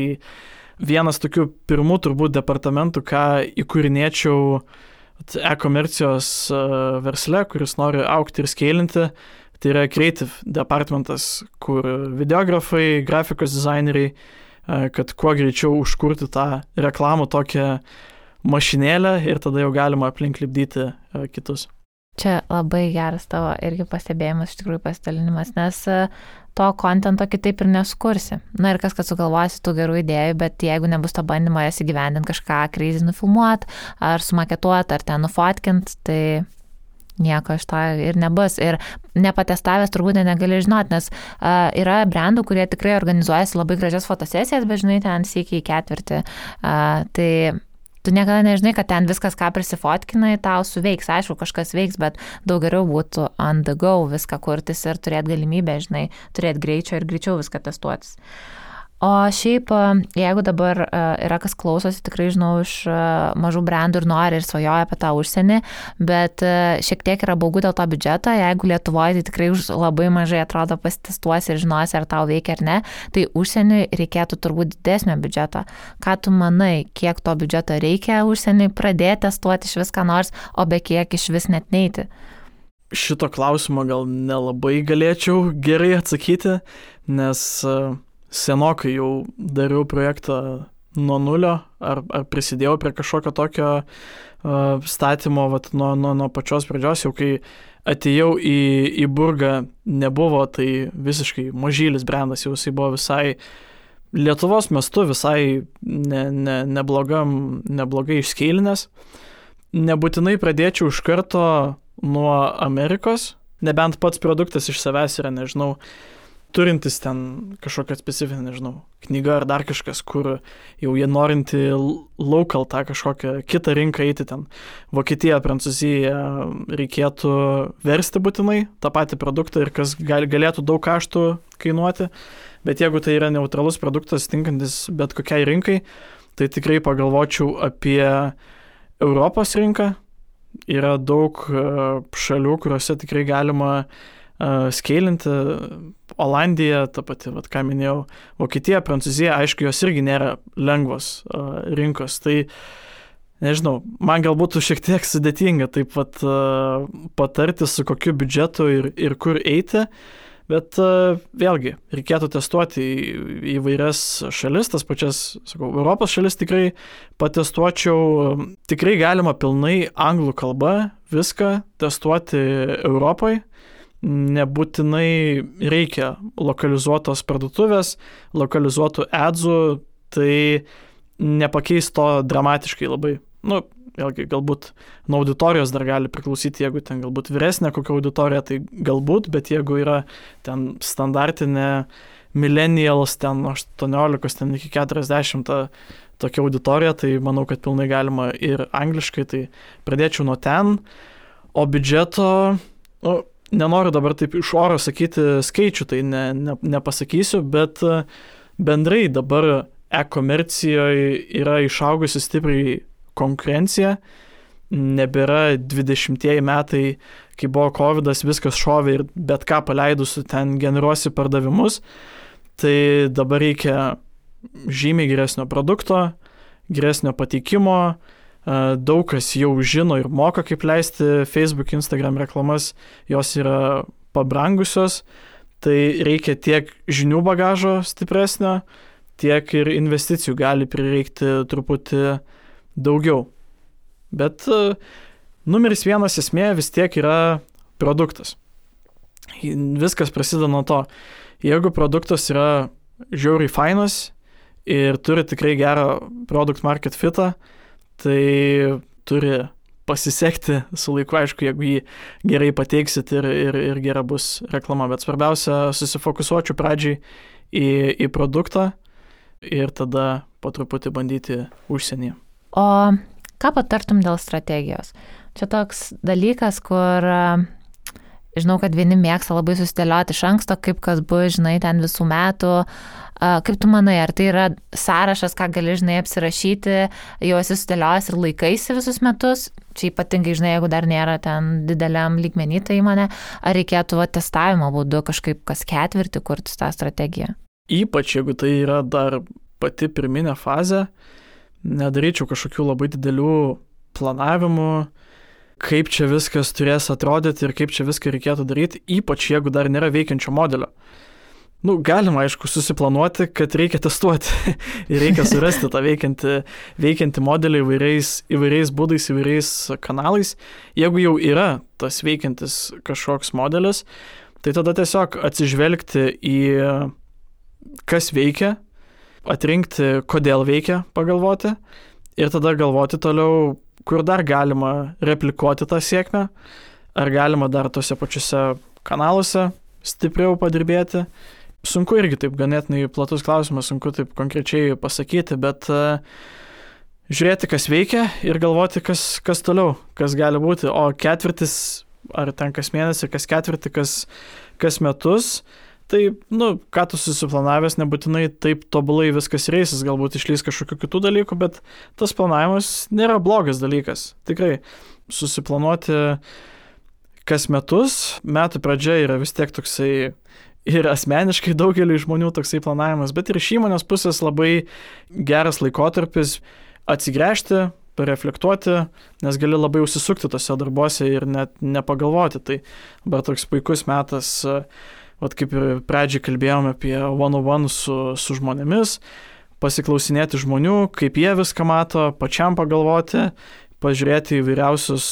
vienas tokių pirmų turbūt departamentų, ką įkūrinėčiau e-komercijos versle, kuris nori augti ir skeilinti, tai yra creative departamentas, kur videografai, grafikos dizaineriai, kad kuo greičiau užkurti tą reklamų tokią mašinėlę ir tada jau galima aplink lipdyti kitus. Čia labai geras tavo irgi pastebėjimas, iš tikrųjų pasidalinimas, nes to kontento kitaip ir neskursi. Ir kas, kad sugalvosi tų gerų idėjų, bet jeigu nebus to bandymo jas įgyvendinti, kažką kreizi nufilmuoti, ar sumaketuoti, ar ten nufotkint, tai nieko iš to ir nebus. Ir nepatestavęs turbūt negali žinoti, nes yra brandų, kurie tikrai organizuojasi labai gražias fotosesijas, bet žinai, ten sykį į ketvirtį. Tai tu niekada nežinai, kad ten viskas, ką prisifotkinai, tau suveiks. Aišku, kažkas veiks, bet daug geriau būtų on the go viską kurtis ir turėti galimybę, žinai, turėti greičio ir greičiau viską testuotis. O šiaip, jeigu dabar yra kas klausosi, tikrai žinau iš mažų brandų ir nori ir svajoja apie tą užsienį, bet šiek tiek yra baugu dėl to biudžeto, jeigu Lietuvoje tai tikrai labai mažai atrodo pasitestuosi ir žinosi, ar tau veikia ar ne, tai užsieniui reikėtų turbūt didesnio biudžeto. Ką tu manai, kiek to biudžeto reikia užsieniui pradėti testuoti iš viską nors, o be kiek iš vis net neiti? Šito klausimo gal nelabai galėčiau gerai atsakyti, nes senokai jau dariau projektą nuo nulio, ar prisidėjau prie kažkokio tokio statymo nuo pačios pradžios, jau kai atėjau į Burgą, nebuvo tai visiškai mažylis brandas, jau jisai buvo visai Lietuvos mastu, visai neblogai išskeilinęs. Nebūtinai pradėčiau iš karto nuo Amerikos, nebent pats produktas iš savęs yra, nežinau, turintis ten kažkokią specifinę, nežinau, knygą ar dar kažkas, kur jau jie norinti local tą kažkokią kitą rinką eiti ten. Vokietija, Prancūzija reikėtų versti būtinai tą patį produktą ir kas galėtų daug kaštų kainuoti, bet jeigu tai yra neutralus produktas, tinkantis bet kokiai rinkai, tai tikrai pagalvočiau apie Europos rinką. Yra daug šalių, kuriuose tikrai galima skeilinti. Olandija, ta pati, ką minėjau, Vokietija, Prancūzija, aišku, jos irgi nėra lengvos rinkos. Tai nežinau, man galbūt šiek tiek sudėtinga taip pat patarti, su kokiu biudžetu ir kur eiti, bet vėlgi, reikėtų testuoti įvairias šalis, tas pačias, sakau, Europos šalis tikrai patestuočiau, tikrai galima pilnai anglų kalba viską testuoti Europoje, nebūtinai reikia lokalizuotos parduotuvės, lokalizuotų adsų, tai nepakeis to dramatiškai labai. Nu, vėlgi, galbūt nuo auditorijos dar gali priklausyti, jeigu ten galbūt vyresnė kokia auditorija, tai galbūt, bet jeigu yra ten standartinė millennials, ten 18, ten iki 40 tokia auditorija, tai manau, kad pilnai galima ir angliškai, tai pradėčiau nuo ten, o biudžeto, nu, nenoriu dabar taip iš oro sakyti skaičių, tai nepasakysiu, bet bendrai dabar e-komercijoje yra išaugusi stipriai konkurencija, nebėra 20 metai, kai buvo COVID-as, viskas šovė ir bet ką paleidusi ten generuosi pardavimus, tai dabar reikia žymiai geresnio produkto, geresnio pateikimo, daug kas jau žino ir moka, kaip leisti Facebook, Instagram reklamas, jos yra pabrangusios, tai reikia tiek žinių bagažo stipresnio, tiek ir investicijų gali prireikti truputį daugiau. Bet numeris vienas esmė vis tiek yra produktas. Viskas prasideda nuo to. Jeigu produktas yra žiauriai fainas ir turi tikrai gerą product market fitą, tai turi pasisekti su laiku, aišku, jeigu jį gerai pateiksit ir gera bus reklama. Bet svarbiausia, susifokusuočiau pradžiai į produktą ir tada po truputį bandyti užsienyje. O ką patartum dėl strategijos? Čia toks dalykas, kur žinau, kad vieni mėgsta labai susidėlioti iš anksto, kaip kas bus, žinai, ten visų metų. Kaip tu manai, ar tai yra sąrašas, ką gali, žinai, apsirašyti, jau esi sudėliojęs ir laikaisi visus metus? Čia ypatingai, žinai, jeigu dar nėra ten dideliam lygmenį ta įmonė, ar reikėtų testavimo būdu kažkaip kas ketvirtį kurti tą strategiją? Ypač jeigu tai yra dar pati pirminė fazė, nedaryčiau kažkokių labai didelių planavimų, kaip čia viskas turės atrodyti ir kaip čia viską reikėtų daryti, ypač jeigu dar nėra veikiančio modelio. Nu, galima, aišku, susiplanuoti, kad reikia testuoti ir reikia surasti tą veikiantį modelį įvairiais būdais, įvairiais kanalais. Jeigu jau yra tas veikiantis kažkoks modelis, tai tada tiesiog atsižvelgti į kas veikia, atrinkti, kodėl veikia, pagalvoti ir tada galvoti toliau, kur dar galima replikuoti tą sėkmę, ar galima dar tose pačiuose kanaluose stipriau padirbėti. Sunku irgi taip ganėtinai platus klausimas, sunku taip konkrečiai pasakyti, bet žiūrėti, kas veikia ir galvoti, kas toliau, kas gali būti. O ketvirtis, ar ten kas mėnesį, kas ketvirtį, kas metus, tai, ką tu susiplanavęs, nebūtinai taip tobulai viskas reisis, galbūt išlys kažkokių kitų dalykų, bet tas planavimas nėra blogas dalykas. Tikrai susiplanuoti kas metus, metų pradžia yra vis tiek toksai ir asmeniškai daugeliui žmonių toksai planavimas, bet ir iš įmonės pusės labai geras laikotarpis atsigręžti, pareflektuoti, nes gali labai užsisukti tose darbuose ir net nepagalvoti. Tai dabar toks puikus metas, kaip ir pradžiai kalbėjome apie one-on-one su žmonėmis, pasiklausinėti žmonių, kaip jie viską mato, pačiam pagalvoti, pažiūrėti įvairiausius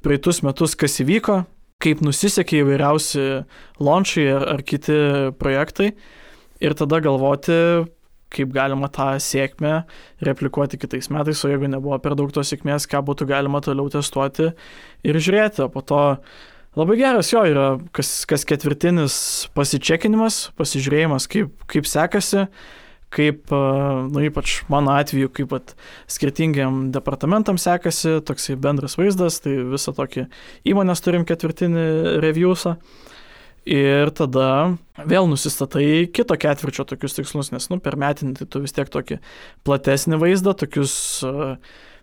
praeitus metus, kas įvyko, kaip nusisekė įvairiausi launchai ar kiti projektai ir tada galvoti, kaip galima tą sėkmę replikuoti kitais metais, o jeigu nebuvo per daug tos sėkmės, ką būtų galima toliau testuoti ir žiūrėti. O po to labai geras jo yra kas ketvirtinis pasičekinimas, pasižiūrėjimas, kaip sekasi, kaip, ypač mano atveju, kaip skirtingiam departamentam sekasi, toksai bendras vaizdas, tai visą tokį įmonės turim ketvirtinį reviewsą. Ir tada vėl nusistatai kito ketvirčio tokius tikslus, nes per metinį tai tu vis tiek tokį platesnį vaizdą, tokius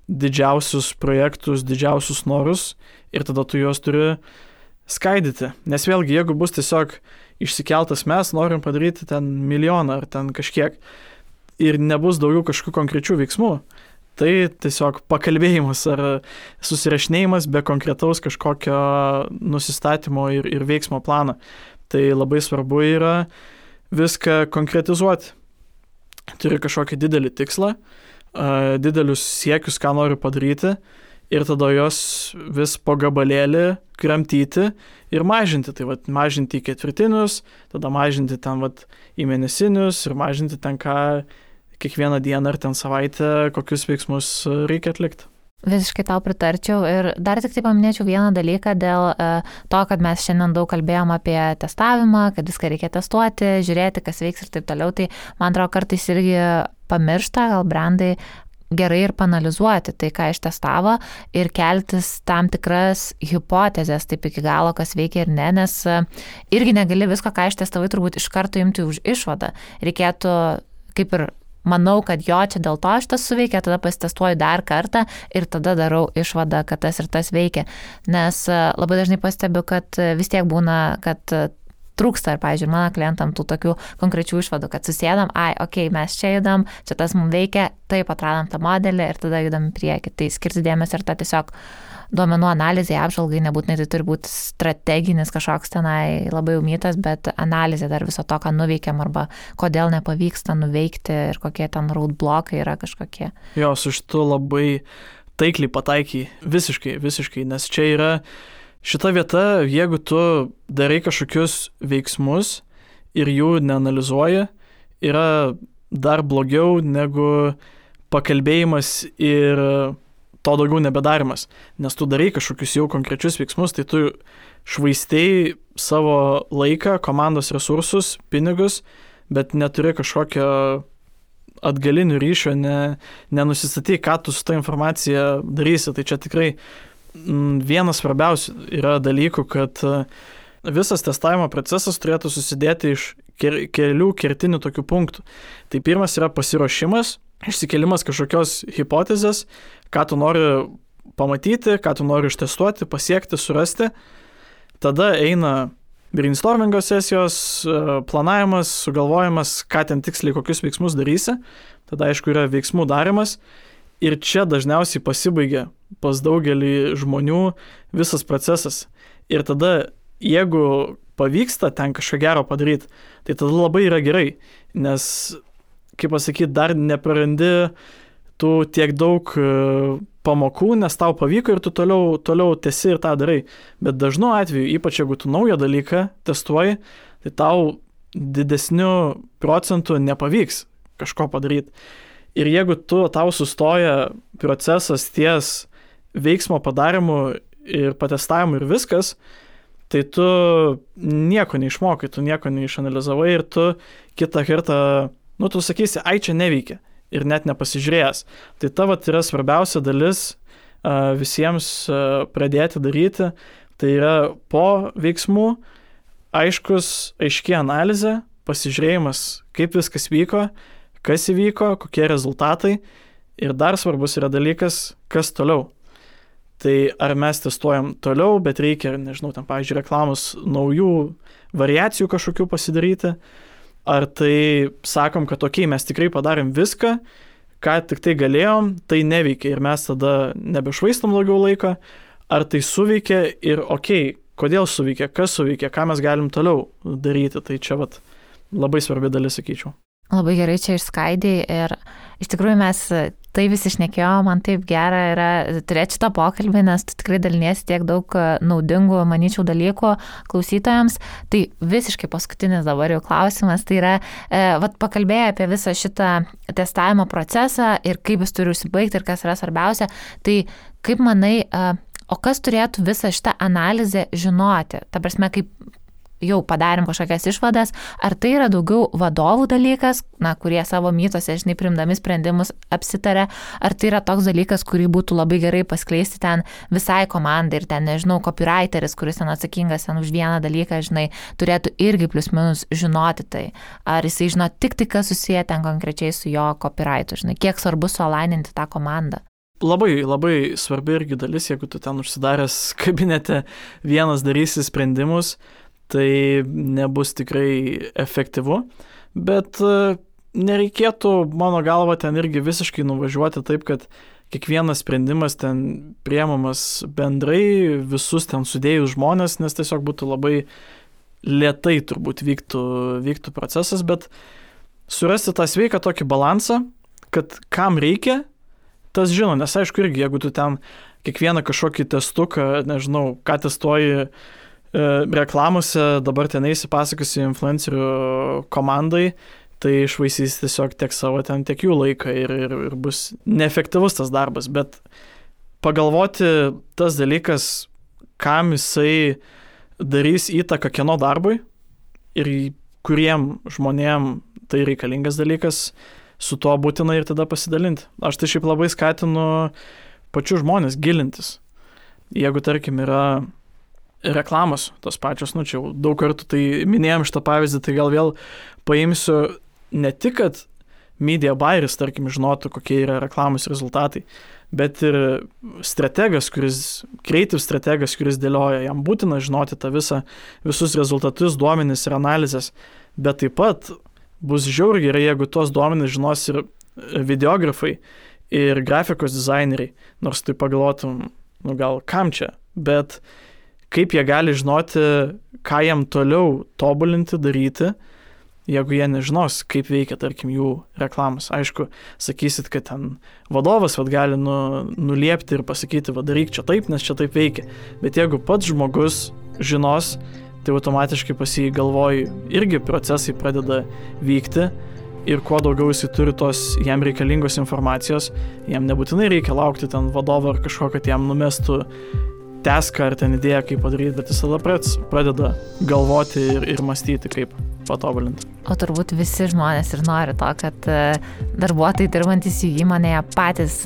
didžiausius projektus, didžiausius norus ir tada tu juos turi skaidyti. Nes vėlgi, jeigu bus tiesiog išsikeltas mes norim padaryti ten 1 milijoną ar ten kažkiek ir nebus daugiau kažkokių konkrečių veiksmų, Tai tiesiog pakalbėjimas ar susirašinėjimas be konkretaus kažkokio nusistatymo ir veiksmo plano. Tai labai svarbu yra viską konkretizuoti. Turi kažkokį didelį tikslą, didelius siekius, ką noriu padaryti, ir tada jos vis po gabalėlį kramtyti ir mažinti. Tai mažinti į ketvirtinius, tada mažinti ten į mėnesinius ir mažinti ten kiekvieną dieną ar ten savaitę, kokius veiksmus reikia atlikti. Visiškai tau pritarčiau ir dar tik tai paminėčiau vieną dalyką dėl to, kad mes šiandien daug kalbėjom apie testavimą, kad viską reikia testuoti, žiūrėti, kas veiks ir taip toliau, tai man atrodo kartais irgi pamiršta, gal brandai gerai ir panalizuoti tai, ką ištestavo ir keltis tam tikras hipotezės, taip iki galo, kas veikia ir ne, nes irgi negali visko, ką ištestavai, turbūt iš karto imti už išvadą. Reikėtų kaip ir manau, kad jo čia dėl to šitas suveikia, tada pasitestuoju dar kartą ir tada darau išvadą, kad tas ir tas veikia. Nes labai dažnai pastebiu, kad vis tiek būna, kad trūksta ir, pavyzdžiui, mano klientam tų tokių konkrečių išvadų, kad susėdam, mes čia judam, čia tas mums veikia, taip atradom tą modelį ir tada judam į priekį. Tai skirti dėmesį ir tą tiesiog duomenų analizai, apžvalgai, nebūtinai tai turi būti strateginis kažkoks tenai labai umytas, bet analizė dar viso to, ką nuveikiam arba kodėl nepavyksta nuveikti ir kokie ten roadblokai yra kažkokie. Jo, su šitu labai taikliai pataikiai, visiškai, nes čia yra šita vieta, jeigu tu darai kažkokius veiksmus ir jų neanalizuoji, yra dar blogiau negu pakalbėjimas ir to daugiau nebedarimas. Nes tu darai kažkokius jau konkrečius veiksmus, tai tu švaistei savo laiką, komandos resursus, pinigus, bet neturi kažkokio atgalinių ryšio, nenusistatai, ką tu su ta informacija darysi. Tai čia tikrai vienas svarbiausių yra dalykų, kad visas testavimo procesas turėtų susidėti iš kelių kertinių tokių punktų. Tai pirmas yra pasiruošimas, išsikėlimas kažkokios hipotezės, ką tu nori pamatyti, ką tu nori ištestuoti, pasiekti, surasti. Tada eina brainstormingo sesijos, planavimas, sugalvojimas, ką ten tiksliai, kokius veiksmus darysi. Tada, aišku, yra veiksmų darimas. Ir čia dažniausiai pasibaigia pas daugelį žmonių visas procesas. Ir tada, jeigu pavyksta ten kažką gero padaryti, tai tada labai yra gerai, nes, kaip pasakyti, dar neprarandi tų tiek daug pamokų, nes tau pavyko ir tu toliau tęsi ir tą darai. Bet dažnu atveju, ypač jeigu tu naują dalyką testuoji, tai tau didesniu procentu nepavyks kažko padaryti. Ir jeigu tau sustoja procesas ties veiksmo padarimu ir patestavimu ir viskas, tai tu nieko neišmokai, tu nieko neišanalizavai ir tu kitą kartą, tu sakysi, čia neveikia ir net nepasižiūrėjęs. Tai tavo yra svarbiausia dalis visiems pradėti daryti, tai yra po veiksmų aiški analizė, pasižiūrėjimas, kaip viskas vyko, kas įvyko, kokie rezultatai ir dar svarbus yra dalykas, kas toliau. Tai ar mes testuojam toliau, bet reikia, ten, pavyzdžiui, reklamos naujų variacijų kažkokių pasidaryti, ar tai sakom, kad mes tikrai padarėm viską, ką tik tai galėjom, tai neveikia ir mes tada nebešvaistom daugiau laiko, ar tai suveikia ir kodėl suveikia, kas suveikia, ką mes galim toliau daryti, tai čia labai svarbi dalis, sakyčiau. Labai gerai čia išskaidai ir iš tikrųjų mes tai visi šnekėjom, man taip gera yra turėti šitą pokalbį, nes tu tikrai daliniesi tiek daug naudingų, manyčiau, dalykų klausytojams. Tai visiškai paskutinis dabar jau klausimas, tai yra, pakalbėjai apie visą šitą testavimo procesą ir kaip jis turi užsibaigti ir kas yra svarbiausia. Tai kaip manai, o kas turėtų visą šitą analizę žinoti? Ta prasme, kaip jau padarėm kažkokias išvadas, ar tai yra daugiau vadovų dalykas, kurie savo mytose, priimdami sprendimus apsitarė, ar tai yra toks dalykas, kurį būtų labai gerai paskleisti ten visai komandai ir ten, copywriteris, kuris ten atsakingas ten už vieną dalyką, turėtų irgi plius minus žinoti tai. Ar jisai žino tik tai, kas susiję ten konkrečiai su jo copywritu, kiek svarbu sualaininti tą komandą. Labai, labai svarbi irgi dalis, jeigu tu ten užsidaręs kabinete vienas darysi sprendimus, tai nebus tikrai efektyvu, bet nereikėtų, mano galva, ten irgi visiškai nuvažiuoti taip, kad kiekvienas sprendimas ten priemamas bendrai, visus ten sudėjus žmonės, nes tiesiog būtų labai lėtai turbūt vyktų procesas, bet surasti tą sveiką tokį balansą, kad kam reikia, tas žino, nes aišku irgi, jeigu tu ten kiekvieną kažkokį testuką, nežinau, ką testuoji reklamose, dabar ten eisi pasakosi influencerių komandai, tai išvaisys tiesiog tiek savo ten, tiek jų laiką ir bus neefektyvus tas darbas, bet pagalvoti tas dalykas, kam jisai darys įtaką kieno darbui ir kuriem žmonėm tai reikalingas dalykas, su tuo būtina ir tada pasidalinti. Aš tai šiaip labai skatinu pačių žmonės gilintis. Jeigu, tarkim, yra reklamos tos pačios, čia jau daug kartų tai minėjom šitą pavyzdį, tai gal vėl paimsiu ne tik, kad media buyeris, tarkim, žinotų, kokie yra reklamos rezultatai, bet ir creative strategas, kuris dėlioja, jam būtina žinoti tą visus rezultatus, duomenis ir analizės, bet taip pat bus žiauriai gerai, jeigu tuos duomenis žinos ir videografai, ir grafikos dizaineriai, nors tai pagalvotum, gal kam čia, bet kaip jie gali žinoti, ką jam toliau tobulinti, daryti, jeigu jie nežinos, kaip veikia, tarkim, jų reklamos. Aišku, sakysit, kad ten vadovas gali nuliepti ir pasakyti, daryk čia taip, nes čia taip veikia. Bet jeigu pats žmogus žinos, tai automatiškai pas jį galvoj irgi procesai pradeda vykti ir kuo daugiau jisai turi tos jam reikalingos informacijos, jam nebūtinai reikia laukti ten vadovo ar kažko, kad jam numestų teską ar ten idėją, kaip padaryti, bet jis tada pradeda galvoti ir mąstyti, kaip patobulinti. O turbūt visi žmonės ir nori to, kad darbuotojai dirbantys jų įmonėje patys,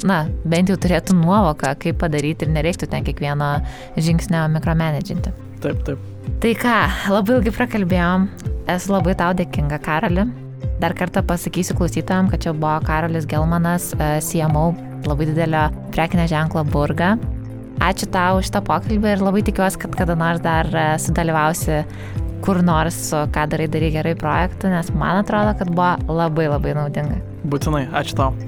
bent jau turėtų nuovoką, kaip padaryti ir nereiktų ten kiekvieno žingsnio mikromanedžinti. Taip. Tai ką, labai ilgai prakalbėjom, esu labai tau dėkinga, Karoli. Dar kartą pasakysiu klausytojams, kad čia buvo Karolis Gelmanas, CMO labai didelio prekinio ženklo Burga. Ačiū tau už šitą pokalbį ir labai tikiuosi, kad kada nors dar sudalyvausi kur nors su Ką darai gerai projektu, nes man atrodo, kad buvo labai labai naudinga. Būtinai, ačiū tau.